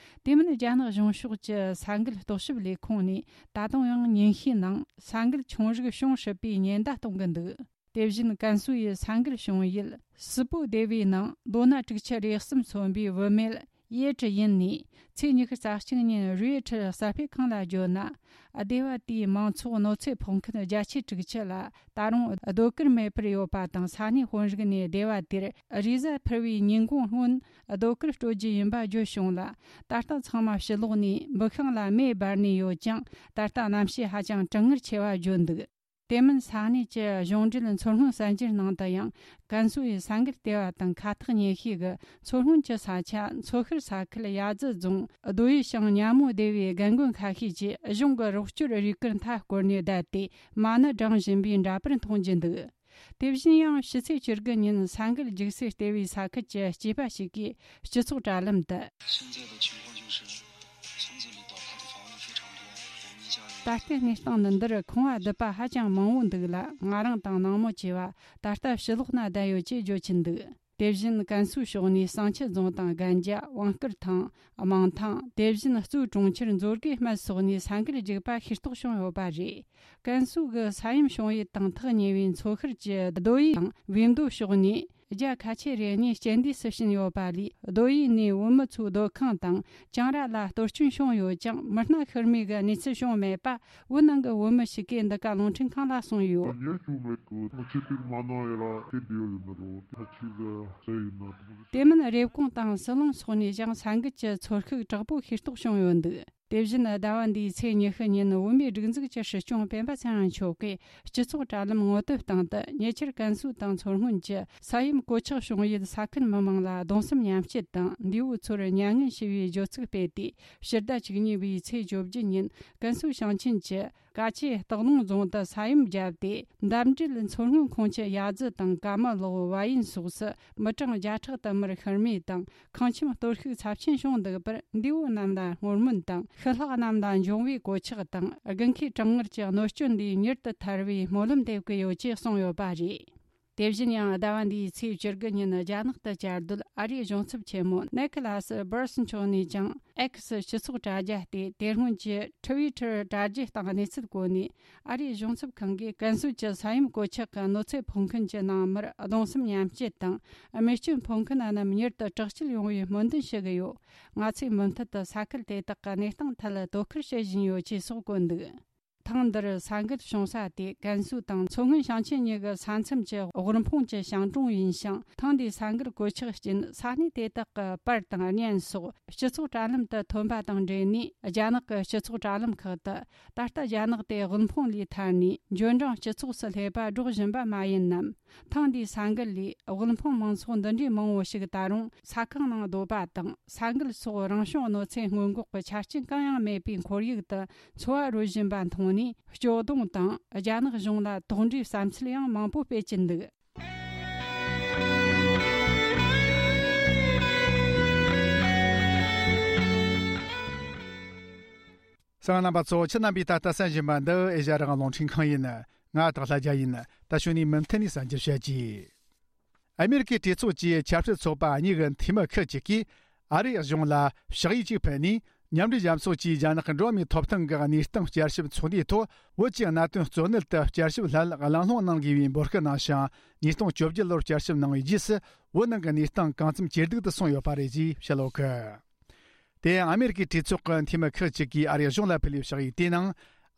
དེ་མིན་རྒྱ་ནག་གཞུང་ཕྱོགས་ཀྱི་ས་འགུལ་རྟོག་ཞིབ་ལས་ཁུངས་ནས་ད་དུང་ཡང་ཉིན་ཤས་ནང་ས་འགུལ་ཆུང་རིགས་བྱུང་སྲིད་པའི་ཉེན་བརྡ་གཏོང་གི་འདུག། དེ་བཞིན་ཀན་སུའུ་ཡི་ས་འགུལ་བྱུང་ཡུལ་སི་པོ་སྡེ་བའི་ནང་ལོ་ན་དྲུག་ཅུ་རེ་གསུམ་སོན་པའི་བུད་མེད་ཡེ་ཀྲི་ཡིན་ནས་ཚེས་ཉི་ཤུ་རྩ་གཅིག་ཉིན་རུའེ་ཁྲི་གསར་སྤེལ་ཁང་ལ་བརྗོད་ན། སྡེ་བ་དེའི་མང་ཚོགས་གནོད་འཚེ་ཕོག་མཁན་བརྒྱད་ཅུ་དྲུག་ཅུ་ལ་ད་རུང་སྡོད་གུར་མེད་པར་ཡོད་པ་དང་། ས་གནས་དཔོན་རིགས་ནས་སྡེ་བ་དེར་རེས་གཟའ་ཕུར་བུའི་ཉིན་གུང་སྔོན་སྡོད་གུར་སྤྲོད་རྒྱུ་ཡིན་པ་བརྗོད་བྱུང་ལ། ད་ལྟ་ཚང་མ་ཕྱི་ལོགས་ནས་འབུ་ཤིང་ལ་མེ་སྦར་ནས་ཡོད་ཀྱང་། ད་ལྟ་གནམ་གཤིས་ཧ་ཅང་གྲང་ངར་ཆེ་བ་བརྗོད་འདུག། དེ་མིན་ས་གནས་ཀྱི་གཞུང་འབྲེལ་མཚོ་སྔོན་གསར་འགྱུར་ནང་དུ་ཡང་། ཀན་སུའུ་ཡི་ས་འགུལ་ལྟེ་བ་དང་ཁ་ཐག་ཉེ་ཤོས་ཀྱི་མཚོ་སྔོན་གྱི་ས་ཆ་མཚོ་ཤར་ས་ཁུལ་ཡ་ཙི་རྫོང་རྡོ་ཡི་ཞང་ཉ་མོ་སྡེ་བའི་རྒན་རྒོན་ཁ་ཤས་ཀྱིས་གཞུང་གི་རོགས་སྐྱོར་རུས་སྐར་མཐའ་བསྐོར་ནས་བསྡད་དེ། མ་ཎི་བགྲངས་བཞིན་པའི་འདྲ་པར་མཐོང་རྒྱུ་འདུག། དེ་བཞིན་ཡང་ཕྱི་ཚེས་བཅུ་དགུ་ཉིན་ས་འགུལ་རྒྱུག་སའི་ལྟེ་བའི་ས་ཁུལ་གྱི་སྐྱེས་པ་ཞིག་གིས་སྤྱི་ཚོགས་དྲ་ལམ་དུ། 现在的情况就是村子里倒塌的房屋非常多，我们家人 ད་ལྟའི་གནས་སྟངས་ནི་འདིར་ཁང་བ་རྡིབ་པ་ཧ་ཅང་མང་བོ་འདུག་ལ། ང་རང་དང་ནང་མི་བཅས་པ་ད་ལྟ་ཕྱི་ལོགས་ན་བསྡད་ཡོད་ཅེས་བརྗོད་ཀྱིན་འདུག། དེ་བཞིན་ཀན་སུའུ་ཕྱོགས་ནས་བསང་ཆུ་རྫོང་དང་རྒན་རྒྱ་དབང་སྐུར་ཐང་དམངས་ཐང་། དེ་བཞིན་གཙོས་གྲོང་ཁྱེར་མཛོད་དགེ་སྨད་སོགས་ནས་ས་འགུལ་རྒྱུག་པ་ཤེས་རྟོགས་བྱུང་ཡོད་པ་རེད། ཀན་སུའུ་གི་ས་ཡོམ་བྱུང་ཡུལ་དང་ཐག་ཉེ་བའི་མཚོ་ཤར་གྱི་རྡོ་ཡི་དང་བིས་མདོ་ཕྱོགས་ནས་རྒྱ་ཁ་ཆེ་རེ་གཉིས་རྐྱེན་འདས་སུ་ཕྱིན་ཡོད་པ་ལས། རྡོ་ཡི་ནས་བོད་མི་ཚོའི་སྡོད་ཁང་དང་གྱང་ར་ལ་གཏོར་སྐྱོན་བྱུང་ཡོད་ཀྱང་། མི་སྣ་ཤི་རྨས་ཀྱི་གནས་ཚུལ་བྱུང་མེད་པ་བོད་ནང་གི་བོད་མི་ཞིག་གིས་འདི་ག་རླུང་འཕྲིན་ཁང་ལ་གསུངས་ཡོད། 也就没够，我这边马上也来，这边有那个，他去的，这有那个。 དེ་མིན་རེབ་གོང་དང་ཟི་ལིང་སོགས་ནས་ཀྱང་ས་འགུལ་གྱི་ཚོར་ཤུགས་དྲག་པོ་ཤེས་རྟོགས་བྱུང་ཡོད་འདུག། དེ་བཞིན་ཟླ་བ་འདིའི་ཚེས་ཉི་ཤུ་ཉིན་བོད་མིའི་སྒྲིག་འཛུགས་ཀྱི་སྲིད་སྐྱོང་སྤེན་པ་ཚེ་རིང་མཆོག་གིས་སྤྱི་ཚོགས་དྲ་ལམ་ངོ་དེབ་སྟེང་དུ། ཉེ་ཆར་ཀན་སུའུ་དང་མཚོ་སྔོན་གྱི་ས་ཡོམ་གོད་ཆག་བྱུང་ཡུལ་ས་ཁུལ་མི་མང་ལ་གདུང་སེམས་མཉམ་སྐྱེད་དང་། འདས་པོ་ཚོར་མྱ་ངན་ཞུ་བའི་བརྗོད་ཚིག་སྤེལ་ཏེ། ཕྱི་ཟླ་བཅུ་གཉིས་པའི་ཚེས་བཅོ་བརྒྱད་ཉིན་ཀན་སུའུ་ཞིང་ཆེན་གྱི་ཀ་ཆེ་སྟག་ལུང་རྫོང་དུ་ས་ཡོམ་བརྒྱབ་སྟེ། འདབས་འབྲེལ་མཚོ་སྔོན་ཁོངས་ཀྱི་ཡ་ཙི་དང་ཀ་མ་ལོག་བ་ཡན་སོགས་སུ་མི་གྲངས་བརྒྱ་ཕྲག་དུ་མར་ཤི་རྨས་དང་། ཁང་ཁྱིམ་གཏོར་བཤིག་ཚབས་ཆེན་བྱུང་འདུག་པར། འདས་པོ་རྣམས་ལ་བསྔོ་སྨོན་དང་། ཤི་ལྷག་རྣམས་ལ་འབྱུང་བའི་གོད་ཆག་དང་། དགུན་ཁའི་གྲང་ངར་གྱི་གནོད་སྐྱོན་འདིས་མྱུར་དུ་ཐར་བའི་སྨོན་ལམ་འདེབས་ཀྱི་ཡོད་ཅེས་གསུངས་ཡོད་པ་རེད། དེ་བཞིན་ཡང་ཟླ་བ་འདིའི་ཚེས་བཅུ་དགུ་ཉིན་རྒྱ་ནག་ཏུ་བཅའ་སྡོད་ཨ་རིའི་གཞུང་ཚབ་ཆེན་མོ་ནེ་ཁི་ལ་སི་སྦར་སི་མཆོག་ནས་ཀྱང་ཨེག་སི་སྤྱི་ཚོགས་དྲ་རྒྱ་སྟེ། དེ་སྔོན་གྱི་ཊི་ཝི་ཊར་དྲ་རྒྱའི་སྟེང་གནས་ཚུལ་བཀོད་ནས། ཨ་རིའི་གཞུང་ཚབ་ཁང་གིས་ཀན་སུའུ་གྱི་ས་ཡོམ་གོད་ཆག་གི་གནོད་འཚེ་ཕོག་མཁན་གྱི་ནང་མིར་གདུང་སེམས་མཉམ་སྐྱེད་དང་། རྨས་སྐྱོན་ཕོག་མཁན་རྣམས་མྱུར་དུ་དྲག་སྐྱེད་ཡོང་བའི་སྨོན་འདུན་ཞུ་གི་ཡོད། ང་ཚོས་མུ་མཐུད་དུ་ས་ཁུལ་དེ་དག་གི་གནས་སྟངས་ཐད་དོ་ཁུར་བྱེད་བཞིན་ཡོད་ཅེས་སོགས་བཀོད་འདུག། ཐེངས་འདིར་ས་འགུལ་བྱུང་ས་དེ་ཀན་སུའུ་དང་མཚོ་སྔོན་ཞིང་ཆེན་གཉིས་ཀྱི་ས་མཚམས་ཀྱི་དབུལ་ཕོངས་ཀྱི་ཞིང་གྲོང་ཡིན་ཞིང་། ཐེངས་འདིའི་ས་འགུལ་གོད་ཆག་རྐྱེན་ས་གནས་དེ་དག་གི་པར་དང་བརྙན་སོགས་སྤྱི་ཚོགས་དྲ་ལམ་དུ་ཐོན་པ་དང་འབྲེལ་ནས། རྒྱ་ནག་གི་སྤྱི་ཚོགས་དྲ་ལམ་ཁག་ཏུ། ད་ལྟ་རྒྱ་ནག་དེ་དབུལ་ཕོངས་ལས་ཐར་ནས་འབྱོར་འབྲིང་སྤྱི་ཚོགས་སུ་སླེབས་པ་སྒྲོག་བཞིན་པ་མ་ཡིན་ནམ། ཐེངས་འདིའི་ས་འགུལ་ལས་དབུལ་ཕོངས་མང་ཚོགས་འདི་འདྲའི་མང་བོ་ཞིག་ད་རུང་ས་ཁང་ནང་སྡོད་པ་དང་། ས་འགུལ་སོགས་རང་བྱུང་གནོད་འཚེ་སྔོན་འགོག་གི་ཆ་རྐྱེན་གང་ཡང་མེད་པའི་ཁོར་ཡུག་ཏུ་འཚོ་བ་རོལ་བཞིན་པ་མཐོང་ནས། སྐྱོ་གདུང་དང་རྒྱ་ནག་གཞུང་ལ་དོགས་འདྲིའི་བསམ་ཚུལ་ཡང་མང་པོ་སྤེལ་གྱིན་འདུག། གསན་མཁན་རྣམ་པ་ཚོ། ཁྱེད་རྣམ་པས་ད་ལྟ་གསན་བཞིན་པ་འདི་ཨེ་ཤ་ཡ་རང་དབང་རླུང་འཕྲིན་ཁང་ཡིན། ང་སྟག་ལྷ་རྒྱལ་ཡིན། ད་གཞུག་ནས་མུ་མཐུད་ནས་གསན་རྒྱུར་བྱེད་ཀྱི། ཨ་མེ་རི་ཀའི་གྲོས་ཚོགས་ཀྱི་ཆབ་སྲིད་ཚོགས་པ་གཉིས་ཀྱི་འཐུས་མི་ཁག་ཅིག་གིས་ཨ་རིའི་གཞུང་ལ་ཕྱག་ཡིག་ཅིག་ཕུལ་ནས། མཉམ་འབྲེལ་རྒྱལ་ཚོགས་ཀྱིས་རྒྱ་ནག་གི་འགྲོ་བ་མིའི་ཐོབ་ཐང་གི་གནས་སྟངས་བསྐྱར་ཞིབ་ཚོགས་འདུའི་ཐོག་བོད་ཀྱི་གནད་དོན་གཙོ་གནད་དུ་བསྐྱར་ཞིབ་སླད་གླེང་སློང་གནང་དགོས་པའི་འབོད་སྐུལ་གནང་ཞིང་། ཉིས་སྟོང་བཅོ་བརྒྱད་ལོར་བསྐྱར་ཞིབ་གནང་བའི་རྗེས་སུ། བོད་ནང་གི་གནས་སྟངས་གང་འཚམ་ཇེ་སྡུག་ཏུ་སོང་ཡོད་པ་རེད་ཅེས་བཤད་ཡོད་གི། དེ་ཡང་ཨ་མེ་རི་ཀའི་གྲོས་ཚོགས་ཀྱི་འཐུས་མི་ཁག་ཅིག་གིས་ཨ་རིའི་གཞུང་ལ་ཕུལ་བའི་ཕྱག་ཡིག་དེའི་ནང་།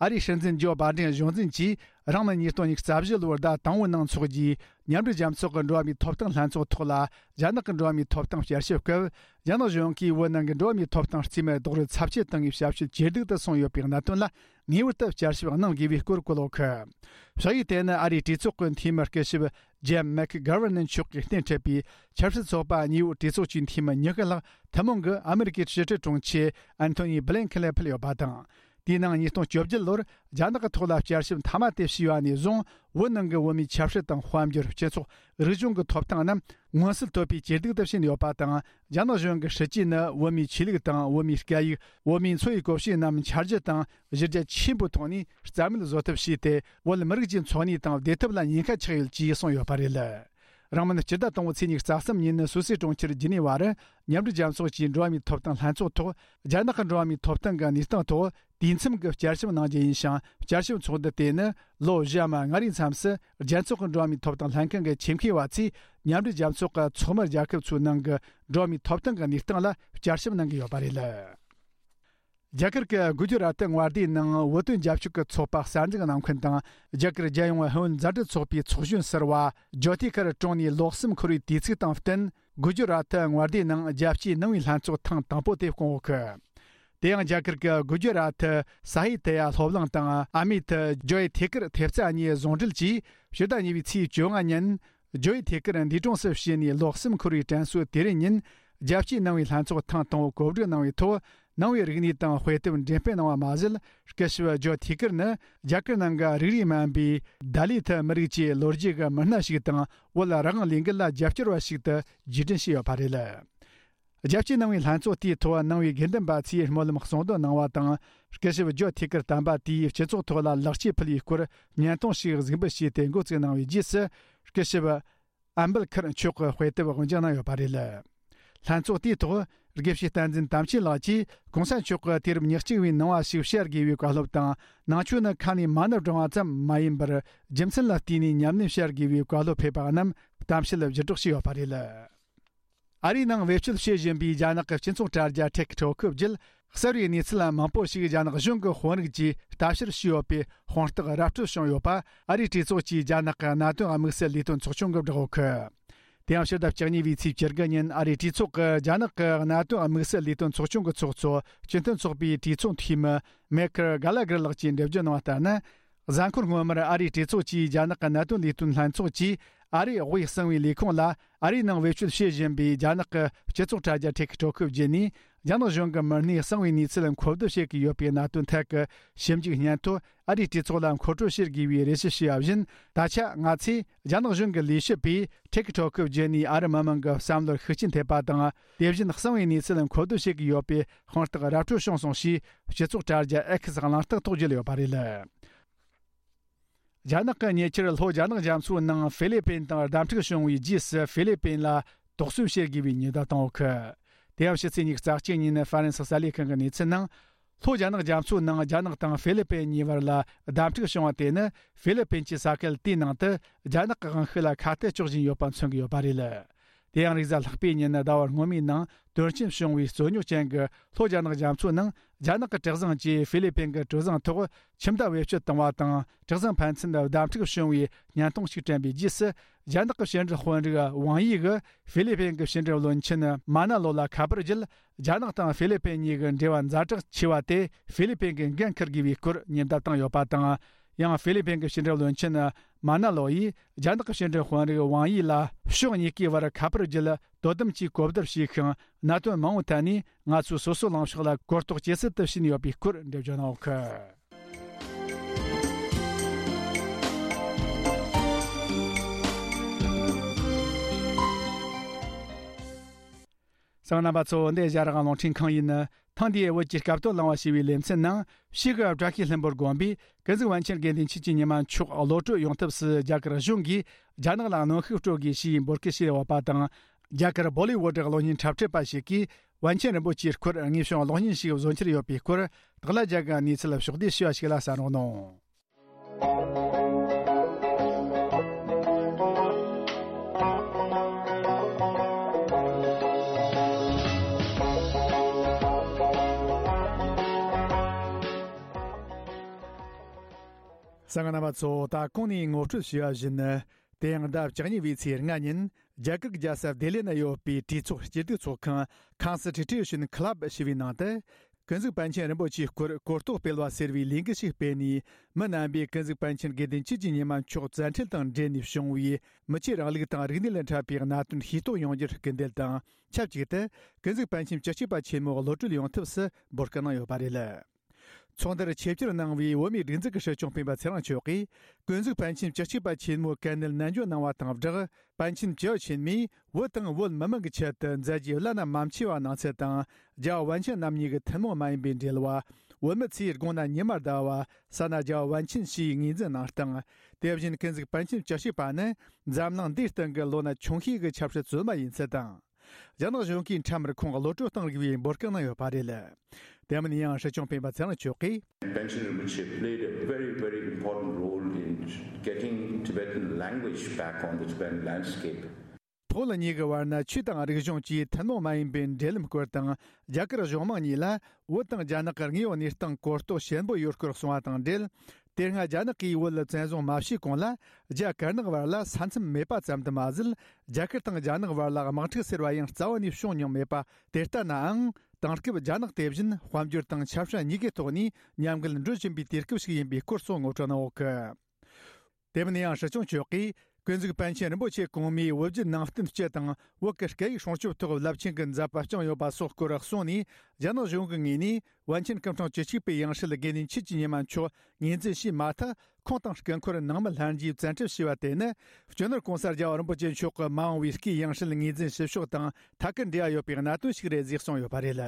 ཨ་རིའི་སྲིད་འཛིན་ཇོ་བྷའི་ཌེན་གཞུང་འཛིན་གྱིས། རང་ནི་ཉིས་སྟོང་ཉི་ཤུ་རྩ་བཞི་ལོར་ཟླ་དང་པོའི་ནང་འཚོགས་རྒྱུའི་མཉམ་འབྲེལ་རྒྱལ་ཚོགས་ཀྱི་འགྲོ་བ་མིའི་ཐོབ་ཐང་ལྷན་ཚོགས་ཐོག་ལ། རྒྱ་ནག་གི་འགྲོ་བ་མིའི་ཐོབ་ཐང་བསྐྱར་ཞིབ་སྐབས། རྒྱ་ནག་གཞུང་གིས་བོད་ནང་གི་འགྲོ་བ་མིའི་ཐོབ་ཐང་རྩིས་མེད་རྡོག་རོལ་ཚབས་ཆེ་བཏང་བའི་ཞབས་ཞུ་ཇེ་སྡུག་ཏུ་སོང་ཡོད་པའི་གནད་དོན་ལ། ངེས་པར་དུ་བསྐྱར་ཞིབ་གནང་དགོས་པའི་སྐོར་བཀོད་ཡོད་གི། ཕྱག་ཡིག་དེ་ནི་ཨ་རིའི་གྲོས་ཚོགས་ཀྱི་འཐུས་མི་སྐུ་ཞབས་ཇེམ་མེག་གྷར་ཝར་ནན་མཆོག་གིས་སྣེ་འཁྲིད་པའི་ཆབ་སྲིད་ཚོགས་པ་གཉིས་པོའི་གྲོས་ཚོགས་ཀྱི་འཐུས་མི་ཉི་ཤུ་ལྷག་ཐུན་མོང་གིས་ཨ་མེ་རི་ཀའི་ཕྱི་དྲིལ་དྲུང་ཆེ་ཨན་ཐོ་ནི་བྷི་ལིན་ཁེན་ལ་ཕུལ་ཡོད་པ་དང་། དེའི་ནང་ཉིས་སྟོང་བཅོ་བརྒྱད་ལོར་རྒྱ་ནག་གི་ཐོག་ལ་བསྐྱར་ཞིབ་མཐའ་མ་དེ་བྱས་པ་ནས་བཟུང་། བོད་ནང་གི་བོད་མིའི་ཆབ་སྲིད་དང་དཔལ་འབྱོར། སྤྱི་ཚོགས། རིག་གཞུང་གི་ཐོབ་ཐང་རྣམས་མངོན་གསལ་དོད་པོས་ཇེ་སྡུག་ཏུ་ཕྱིན་ཡོད་པ་དང་། རྒྱ་ནག་གཞུང་གི་སྲིད་ཇུས་ནི་བོད་མིའི་ཆོས་ལུགས་དང་བོད་མིའི་སྐད་ཡིག་བོད་མིའི་འཚོ་བའི་གོམས་གཤིས་རྣམས་འཆར་གཞི་དང་གཞི་རྒྱ་ཆེན་པོའི་ཐོག་ནས་རྩ་མེད་བཟོ་ཐབས་བྱས་ཏེ། བོད་མི་རིགས་ཀྱི་འཚོ་གནས་དང་བདེ་ཐབས་ལ་ཉེན་ཁ་ཆགས་ཡོད་ཅེས་གསུངས་ཡོད་པ་རེད། རིང་མིན་སྤྱི་ཟླ་དང་པོའི་ཚེས་ཉི་ཤུ་རྩ་གསུམ་ཉིན་ནི་སུད་སིའི་གྲོང་ཁྱེར་ཇི་ནི་ཝ་རུ། མཉམ་འབྲེལ་རྒྱལ་ཚོགས་ཀྱི་འགྲོ་བ་མིའི་ཐོབ་ཐང་ལྷན་ཚོགས་ཐོག་རྒྱ་ནག་གི་འགྲོ་བ་མིའི་ཐོབ་ཐང་གི་གནས་སྟངས་ཐོག་དུས་མཚམས་ཀྱི་བསྐྱར་ཞིབ་གནང་རྒྱུ་ཡིན་ཞིང་། བསྐྱར་ཞིབ་ཚོགས་འདུ་དེ་ནི་ལོ་བཞི་ཡམ་ལྔ་རེའི་མཚམས་སུ། རྒྱལ་ཚོགས་ཀྱི་འགྲོ་བ་མིའི་ཐོབ་ཐང་ལྷན་ཁང་གི་ཆེད་མཁས་པ་ཚོས་མཉམ་འབྲེལ་རྒྱལ་ཚོགས་ཀྱི་ཚོགས་མི་རྒྱལ་ཁབ་ཚོའི་ནང་གི་འགྲོ་བ་མིའི་ཐོབ་ཐང་གི་གནས་སྟངས་ལ་བསྐྱར་ཞིབ་གནང་གི་ཡོད་པ་རེད། རྒྱ་གར་གྱི་གུ་ཇུ་རཱ་ཏི་མངའ་སྡེའི་ནང་བོད་དོན་རྒྱབ་སྐྱོར་གྱི་ཚོགས་པ་གསར་འཛུགས་གནང་མཁན་དང་། རྒྱ་གར་རྒྱལ་ཡོངས་ཧུན་མཛའ་འབྲེལ་ཚོགས་པའི་ཚོགས་གཞོན་ཟུར་པ་ཇོ་ཐི་ཁར་གྲོངས་ནས་ལོ་གསུམ་འཁོར་བའི་དུས་ཚིགས་དང་བསྟུན། གུ་ཇུ་རཱ་ཏི་མངའ་སྡེའི་ནང་རྒྱལ་སྤྱིའི་ནང་པའི་ལྷན་ཚོགས་ཐེངས་དང་པོ་དེ་བསྐོང་ཡོད་གི། དེ་ཡང་རྒྱ་གར་གྱི་གུ་ཇུ་རཱ་ཏི་ས་ཧི་ཏི་ཡ་སློབ་གླིང་དང་། ཨ་མེ་ཐི་ཇོ་ཡི་ཐེ་ཀིར་ཐེབས་རྩ་གཉིས་ཟུང་འབྲེལ་གྱིས་ཕྱི་ཟླ་གཉིས་པའི་ཚེས་བཅོ་ལྔ་ཉིན། ཇོ་ཡི་ཐེ་ཀིར་འདས་གྲོངས་སུ་ཕྱིན་ནས་ལོ་གསུམ་འཁོར་བའི་དྲན་གསོའི་དུས་རིམ་ཉིན། རྒྱལ་སྤྱིའི་ནང་པའི་ལྷན་ཚོགས་ཐེངས་དང་པོ་གོ་སྒྲིག་གནང་བའི་ཐོག་ནང་པའི་རིག་གནས་དང་དཔེ་དེབ་འགྲེམས་སྤེལ་གནང་བ་མ་ཟད། སྐུ་ཞབས་ཇོ་ཐེ་ཀིར་ནི་རྒྱ་གར་ནང་གི་རིགས་རུས་དམན་པའི་ད་ལི་ཐི་མི་རིགས་ཀྱི་ལོ་རྒྱུས་ཀྱི་མི་སྣ་ཞིག་དང་། བོད་རང་དབང་ལས་འགུལ་ལ་རྒྱབ་སྐྱོར་བ་ཞིག་ཏུ་རྗེས་དྲན་བྱས་ཡོད་པ་རེད། རྒྱལ་སྤྱིའི་ནང་པའི་ལྷན་ཚོགས་དེའི་ཐོག་ནང་པའི་དགེ་འདུན་པ་ཚོས་སྨོན་ལམ་གསུང་འདོན་གནང་བ་དང་། སྐུ་ཞབས་ཇོ་ཐེ་ཀིར་དམ་པ་དེས་སྤྱི་ཚོགས་ཐོག་ལ་ལེགས་སྐྱེས་ཕུལ་བའི་སྐོར་བརྙན་ཐུང་ཞིག་གཟིགས་འབུལ་བྱས་ཏེ་འགོ་བཙུགས་གནང་བའི་རྗེས་སུ། སྐུ་ཞབས་ཨམ་བལ་ཁར་མཆོག་གི་དཔེ་དེབ་དབུ་འབྱེད་གནང་ཡོད་པ་རེད། ལྷན་ཚོགས་དེའི་ཐོག་དགེ་བཤེས་བསྟན་འཛིན་དམ་ཆོས་ལགས་ཀྱིས་གོང་ས་མཆོག་གི་དུས་རབས་ཉེར་གཅིག་པའི་ནང་པ་ཞིག་བཤད་དགོས་པའི་བཀའ་སློབ་དང་། ནང་ཆོས་ནི་ཁ་ནས་མ་ཎི་བགྲང་བ་ཙམ་མ་ཡིན་པར། རྒྱུ་མཚན་ལ་བལྟས་ནས་ཉམས་ལེན་བྱ་དགོས་པའི་བཀའ་སློབ་ཕེབས་པ་རྣམས་གཏམ་བཤད་བརྒྱུད་སྒྲོག་བྱས་ཡོད་པ་རེད། ཨ་རིའི་ནང་བེད་སྤྱོད་བྱེད་བཞིན་པའི་རྒྱ་ནག་གི་སྤྱི་ཚོགས་དྲ་རྒྱ་ཊིག་ཊོག་བརྒྱུད། གསར་བའི་གནས་ཚུལ་མང་པོ་ཞིག་རྒྱ་ནག་གཞུང་གི་དཔོན་རིགས་ཀྱིས་ལྟ་བཤེར་བྱས་ཡོད་པའི་དཔང་རྟགས་ར་སྤྲོད་བྱུང་ཡོད་པ། ཨ་རིའི་གྲོས་ཚོགས་ཀྱི་རྒྱ་ནག་གི་གནད་དོན་དམིགས་བསལ་ལས་དོན་ཚོགས་ཆུང་གིས་བསྒྲགས་ཡོད་གི། དེ་ཡང་ཕྱི་ཟླ་བཅུ་གཉིས་པའི་ཚེས་བཅུ་དགུ་ཉིན་ཨ་རིའི་གྲོས་ཚོགས་ཀྱི་རྒྱ་ནག་གི་གནད་དོན་དམིགས་བསལ་ལས་དོན་ཚོགས་ཆུང་གི་ཚོགས་གཙོ་སྤྱི་མཐུན་ཚོགས་པའི་གྲོས་ཚོགས་འཐུས་མི་མེ་ཁར་གྷ་ལ་གྷར་ལགས་ཀྱིས་འགྲེལ་བརྗོད་གནང་བ་ལྟར་ན། གཟའ་འཁོར་སྔོན་མར་ཨ་རིའི་གྲོས་ཚོགས་ཀྱིས་རྒྱ་ནག་གི་གནད་དོན་ལས་དོན་ལྷན་ཚོགས་ཀྱིས་ཨ་རིའི་དབུས་གསང་བའི་ལས་ཁུངས་ལ། ཨ་རིའི་ནང་བེད་སྤྱོད་བྱེད་བཞིན་པའི་རྒྱ་ནག་གི་སྤྱི་ཚོགས་དྲ་རྒྱ་ཊིག་ཊོག་བརྒྱུད་ནས། རྒྱ་ནག་གཞུང་གི་མི་སྣས་གསང་བའི་གནས་ཚུལ་མཁོ་བསྡུ་བྱེད་ཀྱི་ཡོད་པའི་གནད་དོན་ཐད་ཀྱི་ཞིབ་འཇུག་སྙན་ཐོ་ཨ་རིའི་གྲོས་ཚོགས་ལ་མཁོ་སྤྲོད་བྱེད་དགོས་པའི་རེ་ཞུ་བྱས་པ་བཞིན། ད་ཆ་ང་ཚོས་རྒྱ་ནག་གཞུང་གི་ལས་བྱེད་པས་ཊིག་ཊོག་བརྒྱུད་ནས་ཨ་རི་མི་མང་གི་བསམ་བློར་ཤུགས་རྐྱེན་ཐེབས་པ་དང་། དེ་བཞིན་གསང་བའི་གནས་ཚུལ་མཁོ་བསྡུ་བྱེད་ཀྱི་ཡོད་པའི་དཔང་རྟགས་ར་སྤྲོད་བྱུང་སོང་ཞེས། སྤྱི་ཚོགས་དྲ་རྒྱ་ཨེག་སི་གླེང་སྟེགས་ཐོག་བརྗོད་ཡོད་པ་རེད། རྒྱ་ནག་གི་ཉེ་ཆར་ལྷོ་རྒྱ་ནག་རྒྱ་མཚོའི་ནང་ཧྥི་ལི་པིན་དང་བརྡ་འཕྲིག་བྱུང་བའི་རྗེས་སུ། ཧྥི་ལི་པིན་ལ་དོགས་ཟོན་བྱེད་དགོས་པའི་ཉེན་བརྡ་བཏང་ཡོད་གི། དེ་ཡང་ཕྱི་ཚེས་ཉི་ཤུ་རྩ་གཅིག་ཉིན་ཧྥ་རན་སི་གསར་ལས་ཁང་གི་གནས་ཚུལ་ནང་། ལྷོ་རྒྱ་ནག་རྒྱ་མཚོའི་ནང་རྒྱ་ནག་དང་ཧྥི་ལི་པིན་གཉིས་བར་ལ་བརྡ་འཕྲིག་བྱུང་བ་དེ་ནི། ཧྥི་ལི་པིན་གྱི་ས་ཁུལ་དེའི་ནང་དུ་རྒྱ་ནག་གི་དབང་ཤུགས་ལ་ཁ་གཏད་གཅོག་བཞིན་ཡོད་པ་མཚོན་གྱི་ཡོད་པ་རེད། དེ་ཡང་རེས་གཟའ་ལྷག་པའི་ཉིན་ཟླ་བ་སྔོན་མའི་ནང་དོན་རྐྱེན་བྱུང་བའི་རྩོད་རྙོག་ཅན་གྱི་ལྷོ་རྒྱ་ནག་རྒྱ་མཚོའི་ནང་རྒྱ་ནག་གི་གྲུ་གཟིངས་ཀྱིས་ཧྥི་ལི་པིན་གྱི་གྲུ་གཟིངས་ཐོག་ཁྱིམ་བདག་བེད་སྤྱོད་བཏང་བ་དང་། གྲུ་གཟིངས་ཕན་ཚུན་བརྡ་འཕྲིག་བྱུང་བའི་བརྙན་ཐུང་ཞིག་བསྐྲུན་པའི་རྗེས་སུ། རྒྱ་ནག་གི་ཕྱི་འབྲེལ་དཔོན་རིགས་ཝང་ཡི་གིས་ཧྥི་ལི་པིན་གྱི་ཕྱི་འབྲེལ་བློན་ཆེན་མ་ན་ལོ་ལ་ཁ་པར་བརྒྱུད། རྒྱ་ནག་དང་ཧྥི་ལི་པིན་གཉིས་ཀྱི་འབྲེལ་བཛ་དྲག་ཆེ་བ་དེ་ཧྥི་ལི་པིན་གྱིས་འགན་འཁུར་དགོས་པའི་སྐོར་ཉེན་བརྡ་བཏང་ཡོད་པ་དང་། ཡང་ཧྥི་ལི་པིན་གྱི་ཕྱི་འབྲེལ་བློན་ཆེན་མ་ན་ལོ་ཡིས་རྒྱ་ནག་གི་ཕྱི་འབྲེལ་དཔོན་རིགས་ཝང་ཡི་ལ་ཕྱོགས་གཉིས་ཀའི་བར་ཁ་པར་བརྒྱུད་དོ་དམ་གྱིས་གོ་བསྡུར་བྱས་ཤིང་། གནད་དོན་མང་པོའི་ཐད་ནས་ང་ཚོས་སོ་སོའི་ལངས་ཕྱོགས་ལ་གོ་རྟོགས་ཇེ་གསལ་དུ་ཕྱིན་ཡོད་པའི་སྐོར་འགྲེལ་བརྗོད་གནང་ཡོད་གི། གསན་པ་རྣམ་པ་ཚོ། འདི་ཨེ་ཤ་ཡ་རང་དབང་རླུང་འཕྲིན་ཁང་ཡིན། ཐེངས་འདིའི་བོད་ཀྱི་སྐབས་དོན་གླེང་བ་ཞེས་པའི་ལེ་ཚན་ནང་། ཕྱིས་སུ་བཀྲ་ཤིས་ལྷུན་པོ་དགོན་པའི་ཀུན་གཟིགས་པཎ་ཆེན་དགེ་འདུན་ཆོས་ཀྱི་ཉི་མ་མཆོག་གློད་གྲོལ་ཡོང་ཐབས་སུ་རྒྱ་གར་གཞུང་གིས་རྒྱ་ནག་ལ་གནོན་ཤུགས་སྤྲོད་དགོས་ཞེས་འབོད་སྐུལ་བྱས་ཡོད་པ་དང་། རྒྱ་གར་བོ་ལི་ཝུད་གློག་བརྙན་འཁྲབ་ཁྲིད་པ་ཞིག་གིས། པཎ་ཆེན་རིན་པོ་ཆེའི་སྐོར་དངོས་བྱུང་གློག་བརྙན་ཞིག་བཟོ་འཆར་ཡོད་པའི་སྐོར། སྟག་ལྷ་རྒྱལ་གྱི་གནས་ཚུལ་ཕྱོགས་བསྡུས་ཞུ་བ་ཞིག་ལ་གསན་རོགས་གནང་། གསན་མཁན་རྣམ་པ་ཚོ། ད་གོང་ནས་ངོ་སྤྲོད་ཞུས་པ་བཞིན། དེ་ཡང་ཟླ་བཅུ་གཉིས་པའི་ཚེས་ལྔ་ཉིན། རྒྱ་གར་གྱི་རྒྱལ་ས་ལྡི་ལི་ན་ཡོད་པའི་གྲོས་ཚོགས་སྤྱི་བསྡུ་ཚོགས་ཁང་Constitution Club ཞེས་པའི་ནང་དུ། ཀུན་གཟིགས་པཎ་ཆེན་རིན་པོ་ཆེའི་སྐོར་གོ་རྟོགས་སྤེལ་བ་ཟེར་བའི་ལས་འགུལ་ཞིག་སྤེལ་ནས། མི་རྣམ་པས་ཀུན་གཟིགས་པཎ་ཆེན་དགེ་འདུན་ཆོས་ཀྱི་ཉི་མ་མཆོག་བཙན་ཁྲིད་དང་འབྲེལ་ནས་བྱུང་བའི་མི་ཆོས་རིང་ལུགས་དང་རིག་གནས་ལ་འཕྲད་པའི་གནད་དོན་ཤེས་རྟོགས་ཡོང་རྒྱུར་སྐུལ་འདེད་དང་། ཆབས་ཅིག་ཏུ་ཀུན་གཟིགས་པཎ་ཆེན་བཅུ་གཅིག་པ་ཆེན་མོ་གློད་གྲོལ་ཡོང་ཐབས་སུ་འབོད་སྐུལ་གནང་ཡོད་པ་རེད། ཚོགས་འདུར་ཆེད་བཅར་གནང་བའི་བོད་མིའི་སྒྲིག་འཛུགས་ཀྱི་སྲིད་སྐྱོང་སྤེན་པ་ཚེ་རིང་མཆོག་གིས། ཀུན་གཟིགས་པཎ་ཆེན་བཅུ་གཅིག་པ་ཆེན་མོའི་དཀའ་གནད་ནན་བརྗོད་གནང་བ་དང་སྦྲགས། པཎ་ཆེན་བཅུ་ཆེན་མོས་བོད་དང་བོད་མི་མང་གི་ཆེད་དུ་མཛད་རྗེས་བླ་ན་མ་མཆིས་པ་གནང་ཚུལ་དང་། རྒྱལ་བ་པཎ་ཆེན་རྣམ་གཉིས་ཀྱི་ཐུན་མོང་མ་ཡིན་པའི་འབྲེལ་བ། བོད་མི་ཚོས་དགུང་ན་ཉི་མར་ཟླ་བ། ས་ན་རྒྱལ་བ་པཎ་ཆེན་ཞེས་ངོས་འཛིན་གནང་སྟངས། དེ་བཞིན་ཀུན་གཟིགས་པཎ་ཆེན་བཅུ་གཅིག་པ་ནི་འཛམ་གླིང་འདིའི་སྟེང་གི་ལོ་ན་ཆུང་ཤོས་ཀྱི་ཆབ་སྲིད་བཙུན་མ་ཡིན་ཚུལ་དང་། རྒྱ་ནག་གཞུང་གིས་ཁྲིམས་ར་ཁོང་གློད་གྲོལ་གཏོང་དགོས་པའི་འབོད་སྐུལ་གནང་ཡོད་པ་རེད། དེ་མིན་ཡང་སྲིད་སྐྱོང་སྤེན་པ་ཚེ་རིང་མཆོག་གིས། Panchen Rinpoche played a very, very important role in getting Tibetan language back on the Tibetan landscape. བོད་གཉིས་ཀྱི་བར་ན་ཆོས་དང་རིག་གཞུང་བཅས་ཐུན་མོང་མ་ཡིན་པའི་འབྲེལ་ལམ་སྐོར་དང་། རྒྱ་གར་གཞུང་མང་གཉིས་ལ་བོད་དང་རྒྱ་ནག་གི་དངོས་ཡོད་གནས་སྟངས་གོ་རྟོགས་ཞན་པོ་ཡོད་སྐོར་གསུངས་པ་དང་འབྲེལ། དེ་སྔ་རྒྱ་ནག་གིས་བོད་ལ་བཙན་བཟུང་མ་བྱས་གོང་ལ། རྒྱ་དཀར་ནག་བར་ལ་ས་མཚམས་མེད་པ་ཙམ་དུ་མ་ཟད། རྒྱ་གར་དང་རྒྱ་ནག་བར་ལ་དམག་འཁྲུག་ཟེར་བ་ཡང་རྩ་བ་ནས་བྱུང་མྱོང་མེད་པ་དེ་ལྟ་ནའང་། དེང་སྐབས་རྒྱ་ནག་དེ་བཞིན་དཔལ་འབྱོར་དང་ཆབ་སྲིད་གཉིས་ཀའི་ཐོག་ནས་མཉམ་འགུལ་འགྲོ་བཞིན་པའི་དུས་སྐབས་ཤིག་ཡིན་པའི་སྐོར་སོགས་ངོ་སྤྲོད་གནང་ཡོད་ཀི། དེ་མིན་ཡང་སྲིད་སྐྱོང་མཆོག་གིས། ཀུན་གཟིགས་པཎ་ཆེན་རིན་པོ་ཆེ་གོང་མའི་བོད་བརྒྱུད་ནང་བསྟན་སྤྱི་དང་བོད་ཀྱི་སྐད་ཡིག་སྲུང་སྐྱོབ་ཐོག་རླབས་ཆེན་གྱི་མཛད་པ་བསྐྱངས་ཡོད་པ་སོགས་སྐོར་གསུངས་ནས། རྒྱ་ནག་གཞུང་གི་ངོས་ནས། པཎ་ཆེན་སྐུ་ཕྲེང་བཅུ་གཅིག་པའི་ཡང་སྲིད་དགེ་འདུན་ཆོས་ཀྱི་ཉི་མ་མཆོག་ངོས་འཛིན་བྱས་མ་ཐག་ཁོང་དང་སྐུ་འཁོར་ནང་མི་ལྷན་རྒྱས་བཙན་ཁྲིད་བྱས་པ་དེ་ནི། སྤྱི་ནོར་༸གོང་ས་རྒྱལ་བ་རིན་པོ་ཆེ་མཆོག་གི་མ་འོངས་པའི་སྐུའི་ཡང་སྲིད་ངོས་འཛིན་བྱེད་ཕྱོགས་དང་ཐད་ཀར་འབྲེལ་བ་ཡོད་པའི་གནད་དོན་ཞིག་རེད་ཅེས་གསུངས་ཡོད་པ་རེད།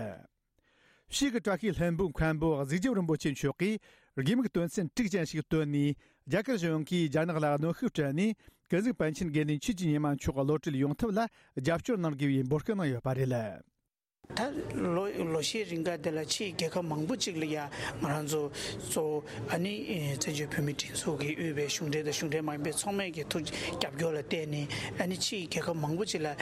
ཕྱིས་ཀྱི་བཀྲ་ཤིས་ལྷུན་པོའི་མཁན་པོ་གཟིགས་རྒྱབ་རིན་པོ་ཆེ་མཆོག་གིས། དགེ་མིག་དོན་ཚན་དྲུག་ཅན་ཞིག་བཏོན་ནས། རྒྱ་གར་གཞུང་གིས་རྒྱ་ནག་ལ་གནོན་ཤུགས་སྤྲད་ནས། ཀུན་གཟིགས་པཎ་ཆེན་དགེ་འདུན་ཆོས་ཀྱི་ཉི་མ་མཆོག་གློད་གྲོལ་ཡོང་ཐབས་ལ་རྒྱབ་སྐྱོར་གནང་དགོས་པའི་འབོད་སྐུལ་གནང་ཡོད་པ་རེད། ད་ལོ་ལོ་ཤས་རིང་ག་དེ་ལ་ཕྱིའི་རྒྱལ་ཁབ་མང་པོ་ཅིག་ལ་ཡ་ང་རང་ཚོ་གཙོ་བོ་ཨ་ནི་བཙན་བྱོལ་བོད་མིའི་སྒྲིག་འཛུགས་ཀྱིས་དབུས་པའི་གཞུང་འབྲེལ་དང་གཞུང་འབྲེལ་མ་ཡིན་པའི་ཚོགས་མི་གི་ཐུགས་རྒྱབ་སྐྱོར་ལ་བརྟེན་ནས་ཨ་ནི་ཕྱིའི་རྒྱལ་ཁབ་མང་པོ་ཅིག་ལ་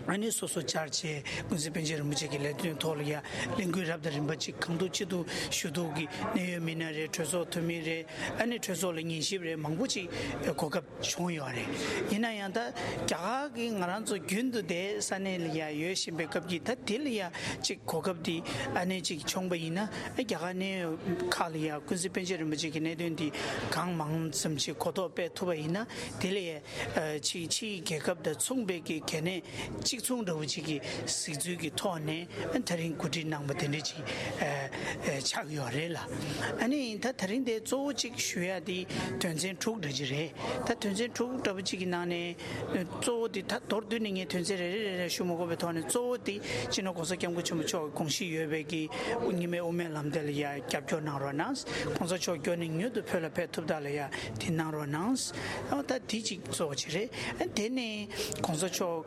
ཨ་ནི་སོ་སོ་བཅར་བྱས་ཀུན་གཟིགས་པཎ་ཆེན་རིན་པོ་ཆེ་གི་ལས་དོན་ཐོག་ལ་ཡ་ལས་འགུལ་རབ་དང་རིམ་པ་ཅིག་གང་ཐུབ་ཅི་ཐུབ་ཞུ་གཏུག་གི་གནད་ཡོད་མི་སྣ་རེད། གྲོས་ཚོགས་འཐུས་མི་རེད། ཨ་ནི་གྲོས་ཚོགས་ལ་ཉན་ཞིབ་རེད། མང་པོ་ཅིག་གོ་སྐབས་བྱུང་ཡོད་རེད། ཡིན་ན་ཡང་ད་རྒྱ་གར་གྱི་ང་རང་ཚོ་རྒྱུན་དུ་དེ་ས་གནས་ལ་ཡ་ཡོད་བཞིན་པའི་སྐབས་ཀྱི་ད་དེ་ལ་ཡ་ཅིག་གོ་སྐབས་དེ་ཨ་ནེ་ཅིག་བྱུང་པ་ཡིན་ན། རྒྱ་གར་གནས་ཡོད་ཁག་ལ་ཡ་ཀུན་གཟིགས་པཎ་ཆེན་རིན་པོ་ཆེ་གི་གནད་དོན་དེ་གང་མང་ཙམ་ཅིག་གོ་རྟོགས་སྤེལ་ཐུབ་པ་ཡིན་ན། དེ་ལ་ཡ་ཅིག་ཕྱིའི་རྒྱལ་ཁབ་དང་མཚུངས་པའི་གི་གལ་གནད་གཅིག་མཚུངས་འདྲ་བོ་ཅིག་གི་གཟིགས་ཚུལ་གྱི་ཐོག་ནས་ད་རིང་གོ་སྒྲིག་གནང་པ་དེ་འདྲ་ཅིག་ཆགས་ཡོད་རེད་ལ། ཨ་ནི་ད་ད་རིང་དེ་གཙོ་བོ་གཅིག་ཞུ་ཡ་དེ་དོན་ཚན་དྲུག་འདྲ་ཅིག་རེད། ད་དོན་ཚན་དྲུག་འདྲ་པོ་གཅིག་གི་ནང་ནས་གཙོ་བོ་དེ་ད་མདོར་བསྡུས་ནས་ངས་དོན་ཚན་རེ་རེ་རེ་རེ་ཞུ་མ་དགོས་པའི་ཐོག་ནས། གཙོ་བོ་དེ་སྤྱི་ནོར་༸གོང་ས་༸སྐྱབས་མགོན་ཆེན་པོ་མཆོག་གི་དགོངས་གཞི་ཡོད་པའི་གི་རྙིང་མའི་དབུ་མའི་ལམ་དེ་ལ་ཡ་རྒྱབ་སྐྱོར་གནང་རོགས་གནང་། ༸གོང་ས་མཆོག་མགྱོགས་ནས་མྱུར་དུ་བོད་ལ་ཕེབས་ཐུབ་ཐབས་ལ་ཡ་དེ་གནང་རོགས་གནང་། ཨ་ད་དེ་གཅིག་གཙོ་བོ་གཅིག་རེད། ཨ་དེ་ནས་༸གོང་ས་མཆོག་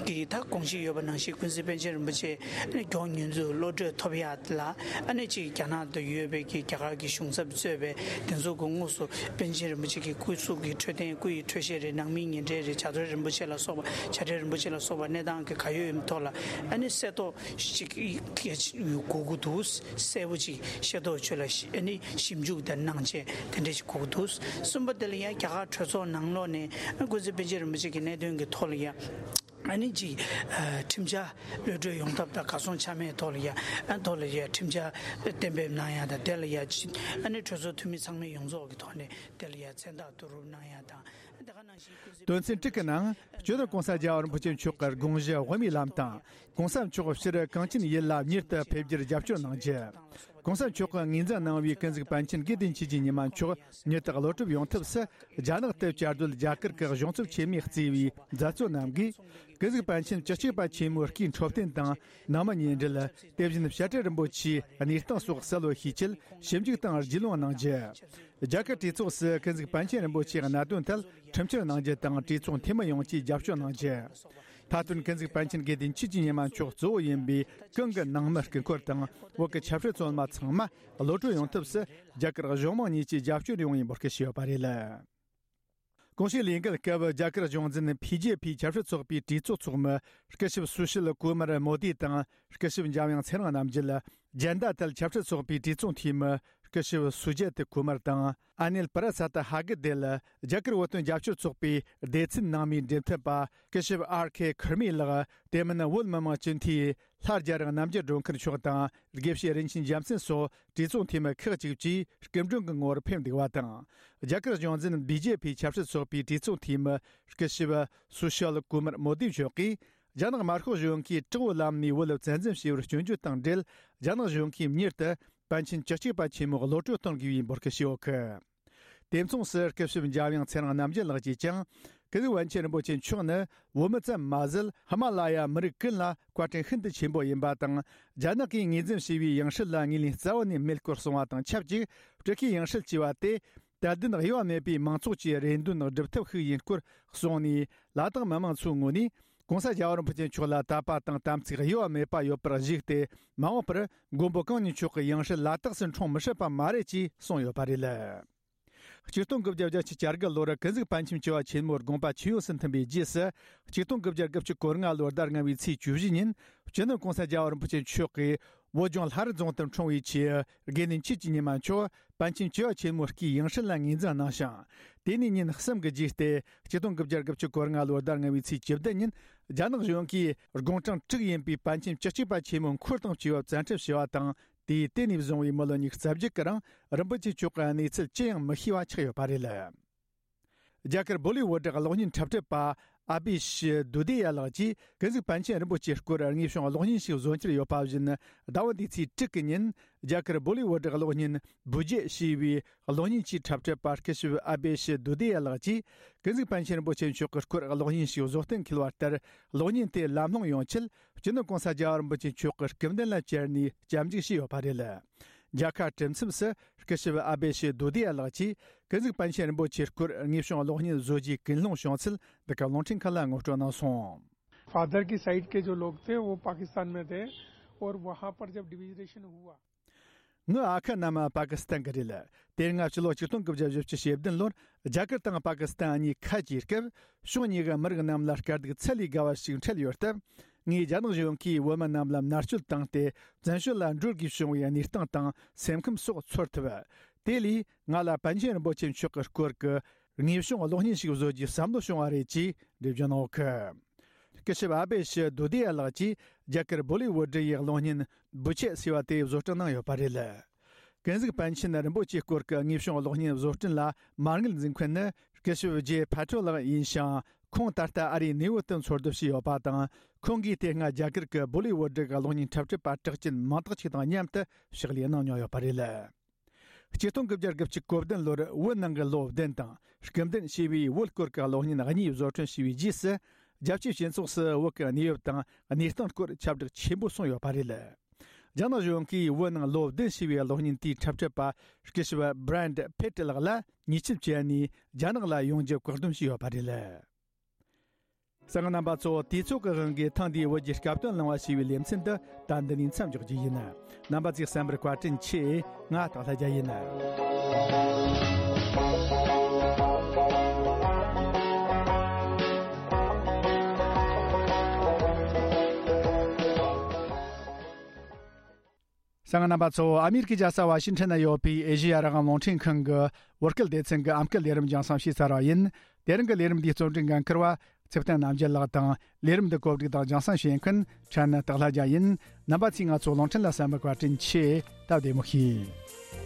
གི་ད་དགོངས་གཞི་ཡོད་པ་ནང་བཞིན་ཀུན་གཟིགས་པཎ་ཆེན་རིན་པོ་ཆེ་མགྱོགས་མྱུར་དུ་གློད་གྲོལ་ཐོབ་ཡ་ལ། ཨ་ནི་གཅིག་རྒྱ་ནག་ཏུ་ཡོད་པའི་གི་རྒྱ་གར་གྱི་གཞུང་ཚབ་གཙོས་པའི་དེ་ཚོ་གི་དངོས་སུ་པཎ་ཆེན་རིན་པོ་ཆེ་གི་སྐུ་གཟུགས་ཀྱི་འཕྲོད་བསྟེན། སྐུ་ཡི་འཕྲོད་བཞེས་རེད། ནང་མིའི་ཉེ་འབྲེལ་རེད། བྱ་བྲལ་རིན་པོ་ཆེ་ལ་སོགས་པ། བྱ་བྲལ་རིན་པོ་ཆེ་ལ་སོགས་པ་གནས་སྟངས་ཀྱི་ག་ཡོད་ཡིན་ཐོག་ལ། ཨ་ནི་གསལ་ཐོ་ཅིག་གི་དགོས་ཀྱི་འདུག་གསལ་པོ་ཅིག་ཤེས་རྟོགས་ཆོད་ལ་ཤི་ཨ་ནི་ཞིབ་འཇུག་དང་གནང་བྱས་དེ་འདྲ་ཞིག་དགོས་ཀྱི་འདུག་གསུམ་པ་དེ་ལ་ཡང་རྒྱ་གར་གྲོས་ཚོགས་ནང་ལོགས་ནས་ཀུན་གཟིགས་པཎ་ཆེན་རིན་པོ་ཆེ་གི་གནད་དོན་གྱི་ཐོག་ལ་ཡང་ཨ་ནི་ཅིག་ཁྲིམས་འཆར་གློད་གྲོལ་ཡོང་ཐབས་དང་གར་སོང་ཆ་མེད་ཐོག་ལ་ཡང་ཨ་ཐོག་ལ་ཡང་ཁྲིམས་འཆར་གཏན་འབེབས་གནང་ཡ་དང་། དེ་ལ་ཡང་ཨ་ནི་གྲོས་ཚོགས་འཐུས་མི་ཚང་མའི་ཡོངས་རྫོགས་ཀྱི་ཐོག་ནས་དེ་ལ་ཡང་མཚན་རྟགས་བསྡུ་རུབ་གནང་ཡ་དང་། དོན་ཚན་དྲུག་གི་ནང་། སྤྱི་ནོར་༸གོང་ས་༸རྒྱལ་བ་རིན་པོ་ཆེ་མཆོག་གི་དགོངས་གཞི་དབུ་མའི་ལམ་དང་། ༸གོང་ས་མཆོག་སྤྱིར་གངས་ཅན་ཡུལ་ལ་མྱུར་དུ་ཕེབས་རྒྱུར་རྒྱབ་སྐྱོར་གནང་རྒྱུ། ༸གོང་ས་མཆོག་གིས་ངོས་འཛིན་གནང་བའི་ཀུན་གཟིགས་པཎ་ཆེན་དགེ་འདུན་ཆོས་ཀྱི་ཉི་མ་མཆོག་མྱུར་དུ་གློད་གྲོལ་ཡོང་ཐབས་སུ། རྒྱ་ནག་ཏུ་བཅའ་སྡོད་རྒྱ་གར་གྱི་གཞུང་ཚབ་ཆེན་མོས་གཙོས་པའི་མཛད་གཙོ་རྣམས་ཀྱིས། ཀུན་གཟིགས་པཎ་ཆེན་བཅུ་གཅིག་པ་ཆེན་མོའི་སྐུའི་འཕྲོད་བསྟེན་དང་། ནང་མི་ཉེ་འབྲེལ། དེ་བཞིན་བྱ་བྲལ་རིན་པོ་ཆེའི་གནས་སྟངས་སོགས་གསལ་བོ་ཤེས་ཆེད་ཞིབ་འཇུག་དང་རྒྱུས་ལོན་གནང་རྒྱུ། རྒྱ་གར་གྲོས་ཚོགས་སུ་ཀུན་གཟིགས་པཎ་ཆེན་རིན་པོ་ཆེའི་གནད་དོན་ཐད་ཁྲིམས་བསྐྱར་གནང་རྒྱུ་དང་། གྲོས་ཚོགས་འཐུས་མི་ཡོངས་ཀྱིས་རྒྱབ་སྐྱོར་གནང་རྒྱུ། ཁ་ཏོན་ཀུན་གཟིགས་པཎ་ཆེན་དགེ་ལྡན་ཆོས་ཀྱི་ཉི་མ་མཆོག་གཙོ་བོ་ཡིན་པའི་གང་གི་ནང་མི་སྐུ་འཁོར་དང་བོད་ཀྱི་ཆབ་སྲིད་བཙོན་མ་ཚང་མ་གློད་གྲོལ་ཡོང་ཐབས་སུ་རྒྱ་གར་གཞུང་མང་གཉིས་ཀྱིས་རྒྱབ་སྐྱོར་ཡོང་བའི་འབོད་སྐུལ་ཞུས་ཡོད་པ་རེད། གོང་ཞུས་ལས་འགུལ་སྐབས་རྒྱ་གར་གཞུང་འཛིན་བྷི་ཇེ་ཕི་ཆབ་སྲིད་ཚོགས་པའི་གྲོས་ཚོགས་ཚོགས་མི་སྐུ་ཞབས་སུ་ཤིལ་ཀུ་མར་མོ་དི་དང་སྐུ་ཞབས་འཇམ་དབྱངས་ཚེ་རིང་རྣམ་རྒྱལ། ཇན་ད་དལ་ཆབ་སྲིད་ཚོགས་པའི་གྲོས་ཚོགས་འཐུས་མི་སྐུ་ཞབས་སུ་ཇེ་ཏི་ཀུ་མར་དང་ཨ་ནེལ་པ་ར་སད་ཧ་གི་དེ་ལ་རྒྱ་གར་བོད་དོན་རྒྱབ་སྐྱོར་ཚོགས་པའི་སྡེ་ཚན་ནང་མིའི་འབྲེལ་མཐུད་པ་སྐུ་ཞབས་ཨར་ཁེ་ཁུར་མི་ལགས། དེ་མིན་བོད་མི་མང་སྤྱི་འཐུས་ལྷ་རྒྱལ་རིང་རྣམ་རྒྱལ་སྒྲོལ་མཁར་མཆོག་དང་དགེ་བཤེས་རིན་ཆེན་རྒྱལ་མཚན་སོགས་གྲོས་ཚོགས་འཐུས་མི་ཁག་ཅིག་བཅས་སྐུ་མགྲོན་གྱི་ངོ་བོར་ཕེབས་འདུག་པ་དང་། རྒྱ་གར་གཞུང་འཛིན་བྷི་ཇེ་ཕི་ཆབ་སྲིད་ཚོགས་པའི་གྲོས་ཚོགས་འཐུས་མི་སྐུ་ཞབས་སུ་ཤལ་ཀུ་མར་མོ་དི་མཆོག་གིས། རྒྱ་ནག་དམར་ཤོག་གཞུང་གིས་དྲག་པོའི་ལམ་ནས་བོད་ལ་བཙན་འཛུལ་བྱས་པར་སྐྱོན་བརྗོད་དང་འབྲེལ། རྒྱ་ནག་གཞུང་གིས་མྱུར་དུ་པཎ་ཆེན་བཅུ་གཅིག་པ་ཆེན་མོ་གློད་གྲོལ་གཏོང་དགོས་པའི་འབོད་སྐུལ་ཞུས་ཡོད་གི། དེ་མཚུངས་སུ་སྐུ་ཞབས་འཇམ་དབྱངས་ཚེ་རིང་རྣམ་རྒྱལ་ལགས་ཀྱིས་ཀྱང་། ཀུན་གཟིགས་པཎ་ཆེན་རིན་པོ་ཆེ་མཆོག་ནི་བོད་མི་ཙམ་མ་ཟད། ཧི་མ་ལ་ཡ་མི་རིགས་ཀུན་ལ་བཀའ་དྲིན་ཤིན་ཏུ་ཆེན་པོ་ཡིན་པ་དང་། རྒྱ་ནག་གིས་ངོས་འཛིན་བྱས་པའི་ཡང་སྲིད་ལ་ངོས་ལེན་རྩ་བ་ནས་མེད་སྐོར་གསུངས་པ་དང་ཆབས་ཅིག་སྤྲུལ་སྐུའི་ཡང་སྲིད་ཅེས་པ་དེ། དད་ལྡན་གཡོ་བ་མེད་པའི་མང་ཚོགས་ཀྱི་རེ་འདུན་སྒྲུབ་ཐབས་ཤིག་ཡིན་སྐོར་གསུངས་ནས། ལ་དྭགས་མི་མང་ཚོའི་ངོས་ནས་༸གོང་ས་༸རྒྱལ་བ་རིན་པོ་ཆེ་མཆོག་ལ་དད་པ་དང་དམ་ཚིག་གཡོ་བ་མེད་པ་ཡོད་པར་གཞིགས་ཏེ། མ་འོངས་པར་མགོན་པོ་གང་ཉིད་མཆོག་གི་ཡང་སྲིད་ལ་དྭགས་སུ་འཁྲུངས་མི་སྲིད་པ་མ་རེད་ཅེས་གསུངས་ཡོད་པ་རེད། ཆིག་སྟོང་དགུ་བརྒྱ་བརྒྱད་ཅུ་གྱ་དགུ་ལོར་ཀུན་གཟིགས་པཎ་ཆེན་བཅུ་པ་ཆེན་མོའི་དགོངས་པ་ཇེ་ཡོངས་སུ་མཐུན་པའི་རྗེས་སུ། ཆིག་སྟོང་དགུ་བརྒྱ་དགུ་བཅུ་གོ་ལྔ་ལོའི་ཟླ་ལྔ་པའི་ཚེས་བཅུ་བཞི་ཉིན། སྤྱི་ནོར་༸གོང་ས་༸རྒྱལ་བ་རིན་པོ་ཆེ་མཆོག་གིས། བོད་ལྗོངས་ལྷ་རི་རྫོང་དུ་འཁྲུངས་པའི་ཆེད། དགེ་འདུན་ཆོས་ཀྱི་ཉི་མ་མཆོག་པཎ་ཆེན་བཅུ་པ་ཆེན་མོའི་སྐུའི་ཡང་སྲིད་ལ་ངོས་འཛིན་གནང་ཞིང་། དེ་ནས་ཉིན་གསུམ་གྱི་རྗེས་ཏེ། ཆིག་སྟོང་དགུ་བརྒྱ་དགུ་བཅུ་གོ་ལྔ་ལོའི་ཟླ་ལྔ་པའི་ཚེས་བཅུ་བདུན་ཉིན། རྒྱ་ནག་གཞུང་གིས་དགུང་གྲངས་དྲུག་ཡིན་པའི་པཎ་ཆེན་བཅུ་གཅིག་པ་ཆེན་མོ་འཁོར་དང་བཅས་པ་བཙན་ཁྲིད་བྱས་པ་དང་། དེས་དེ་ནས་བཟུང་བའི་མི་ལོ་ཉི་ཤུ་རྩ་བརྒྱད་ཀྱི་རིང་། རིན་པོ་ཆེ་མཆོག་གི་གནས་ཚུལ་ཅི་ཡང་མི་ཤེས་པ་ཆགས་ཡོད་པ་རེད། རྒྱ་གར་བོ་ལི་ཝུ་ཌི་གློག་བརྙན་འཁྲབ་ཁྲིད་པ་ཨ་བྷི་ཤི་དུ་དི་ཡ་ལགས་ཀྱིས། ཀུན་གཟིགས་པཎ་ཆེན་རིན་པོ་ཆེའི་སྐོར་དངོས་བྱུང་གློག་བརྙན་ཞིག་བཟོ་འཆར་ཡོད་པ་བཞིན། ཟླ་བ་འདིའི་ཚེས་དྲུག་གི་ཉིན། རྒྱ་གར་བོ་ལི་ཝུ་ཌི་གློག་བརྙན་བུ་ཇེ་ཞེས་པའི་གློག་བརྙན་གྱི་འཁྲབ་ཁྲིད་པ་སྐུ་ཞབས་ཨ་བྷི་ཤི་དུ་དི་ཡ་ལགས་ཀྱིས། ཀུན་གཟིགས་པཎ་ཆེན་རིན་པོ་ཆེ་མཆོག་གི་སྐོར་གློག་བརྙན་ཞིག་བཟོ་གཏན་འཁེལ་བ་ལྟར། གློག་བརྙན་དེ་ལམ་ལྷོང་ཡོང་ཆེད། སྤྱི་ནོར་༸གོང་ས་༸རྒྱལ་བ་རིན་པོ་ཆེ་མཆོག་གི་སྐུ་མདུན་ལ་བཅར་ནས་སྐྱབས་འཇུག་བྱས་ཡོད་པ་རེད། མཇལ་ཁ་གྲུབ་མཚམས་སུ། སྐུ་ཞབས་ཨ་བྷི་ཤི་དུ་དི་ཡ་ལགས་ཀྱིས། ཀུན་གཟིགས་པཎ་ཆེན་རིན་པོ་ཆེའི་སྐོར་དངོས་བྱུང་གློག་བརྙན་བཟོ་རྒྱུའི་ཀུན་སློང་བྱུང་ཚུལ་འདི་ག་རླུང་འཕྲིན་ཁང་ལ་ངོ་སྤྲོད་གནང་སོང་། फादर की साइड के जो लोग थे, वो पाकिस्तान में थे और वहाँ पर जब डिवीजन हुआ। ངའི་ཨ་ཁུ་རྣམས་པ་ཀི་སི་ཐན་གྱི་རེད། དེ་སྔ་ཕྱི་ལོ་ཆིག་སྟོང་དགུ་བརྒྱ་བཞི་བཅུ་ཞེ་བདུན་ལོར་རྒྱ་གར་དང་པ་ཀི་སི་ཐན་གཉིས་ཁ་གྱེས་སྐབས། ཕྱོགས་གཉིས་ཀྱི་མི་རིགས་རྣམས་ལ་དཀའ་སྡུག་ཚད་ལས་བརྒལ་བ་ཞིག་འཕྲད་ཡོད་སྟབས། ངས་རྒྱ་ནག་གཞུང་གིས་བོད་མི་རྣམས་ལ་མནར་གཅོད་བཏང་སྟེ། བཙན་བྱོལ་ལ་འགྲོ་དགོས་བྱུང་བའི་གནས་སྟངས་དང་སེམས་ཁམས་སོགས་ཚོར་ཐུབ། དེ་ལས་ང་ལ་པཎ་ཆེན་རིན་པོ་ཆེ་མཆོག་གི་སྐོར་གྱི་དངོས་བྱུང་གློག་བརྙན་ཞིག་བཟོ་རྒྱུའི་བསམ་བློ་བྱུང་བ་རེད་ཅེས་འགྲེལ་བརྗོད་གནང་ཡོད་གི། སྐུ་ཞབས་ཨ་བྷི་ཤི་དུ་དི་ཡ་ལགས་ཀྱིས་རྒྱ་གར་བོ་ལི་ཝུ་ཌི་ཡི་གློག་བརྙན་བུ་ཆེ་ཟེར་བ་དེ་བཟོ་སྐྲུན་གནང་ཡོད་པ་རེད། ཀུན་གཟིགས་པཎ་ཆེན་རིན་པོ་ཆེའི་སྐོར་གྱི་དངོས་བྱུང་གློག་བརྙན་བཟོ་སྐྲུན་ལ་མ་དངུལ་འཛིན་མཁན་ནི་སྐུ་ཞབས་ཇེ་ཕ་ཏྲོ་ལགས་ཡིན་ཞིང་། ཁོང་ད་ལྟ་ཨ་རིའི་ནེའུ་ཡོག་ཏུ་འཚོ་སྡོད་བྱས་ཡོད་པ་དང་། ཁོང་གིས་དེ་སྔ་རྒྱ་གར་གྱི་བོ་ལི་ཝུ་ཌི་གི་གློག་བརྙན་འཁྲབ་ཁྲིད་པ་གྲགས་ཅན་མང་དག་ཅིག་དང་མཉམ་དུ་ཕྱག་ལས་གནང་མྱོང་ཡོད་པ་རེད། ཆིག་སྟོང་དགུ་བརྒྱ་དགུ་བཅུ་གོ་བདུན་ལོར་བོད་ནང་གི་ལོ་བདུན་དང་སྐུ་མདུན་ཞེས་པའི་བོད་སྐོར་གྱི་གློག་བརྙན་གཉིས་བཟོ་སྐྲུན་བྱས་པའི་རྗེས་སུ། རྒྱལ་སྤྱིའི་སྤྱི་ཚོགས་སུ་བོད་ཀྱི་གནས་བབ་དང་གནས་སྟངས་སྐོར་ཁྱབ་བསྒྲགས་ཆེན་པོ་སོང་ཡོད་པ་རེད། རྒྱ་ནག་གཞུང་གིས་བོད་ནང་ལོ་བདུན་ཞེས་པའི་གློག་བརྙན་དེའི་འཁྲབ་ཁྲིད་པ་སྐུ་ཞབས་བྷི་རན་ཕེ་ཏྲི་ལགས་ལ་ཉེས་ཆད་བཅད་ནས་རྒྱ་ནག་ལ་ཡོང་རྒྱུ་བཀག་སྡོམ་བྱས་ཡོད་པ་རེད། གསན་མཁན་རྣམ་པ་ཚོ། དུས་ཚོད་ཀྱི་དབང་གིས་ཐེངས་འདིའི་བོད་ཀྱི་སྐབས་དོན་གླེང་བ་ཞེས་པའི་ལེ་ཚན་འདི་ད་འདི་ནས་མཚམས་འཇོག་རྒྱུ་ཡིན། རྣམ་པ་ཚོས་གསན་པར་བཀའ་དྲིན་ཆེ། ང་སྟག་ལྷ་རྒྱལ་ཡིན། གསན་མཁན་རྣམ་པ་ཚོ། ཨ་མི་རི་ཀའི་རྒྱལ་ས་ཝ་ཤིང་ཊོན་ན་ཡོད་པའི་ཨེ་ཤེ་ཡ་རང་དབང་རླུང་འཕྲིན་ཁང་གི་བོད་སྐད་སྡེ་ཚན་གྱི་ཨམ་སྐད་ལས་རིམ་རྒྱང་སྲིང་བྱས་ཚར་བ་ཡིན། དེ་རིང་གི་ལས་རིམ་འདིའི་རྩོམ་སྒྲིག་འགན་འཁུར་བ་ཚེ་བརྟན་རྣམ་རྒྱལ་ལགས་དང་། ལས་རིམ་འདི་གོ་སྒྲིག་དང་རྒྱང་སྲིང་བྱེད་མཁན་ཕྲན་ནི་སྟག་ལྷ་རྒྱལ་ཡིན། རྣམ་པ་ཚོས་ང་ཚོ་རླུང་འཕྲིན་ལ་གསན་པར་བཀའ་དྲིན་ཆེ། སྟབས་བདེ་མོ་བྱོས།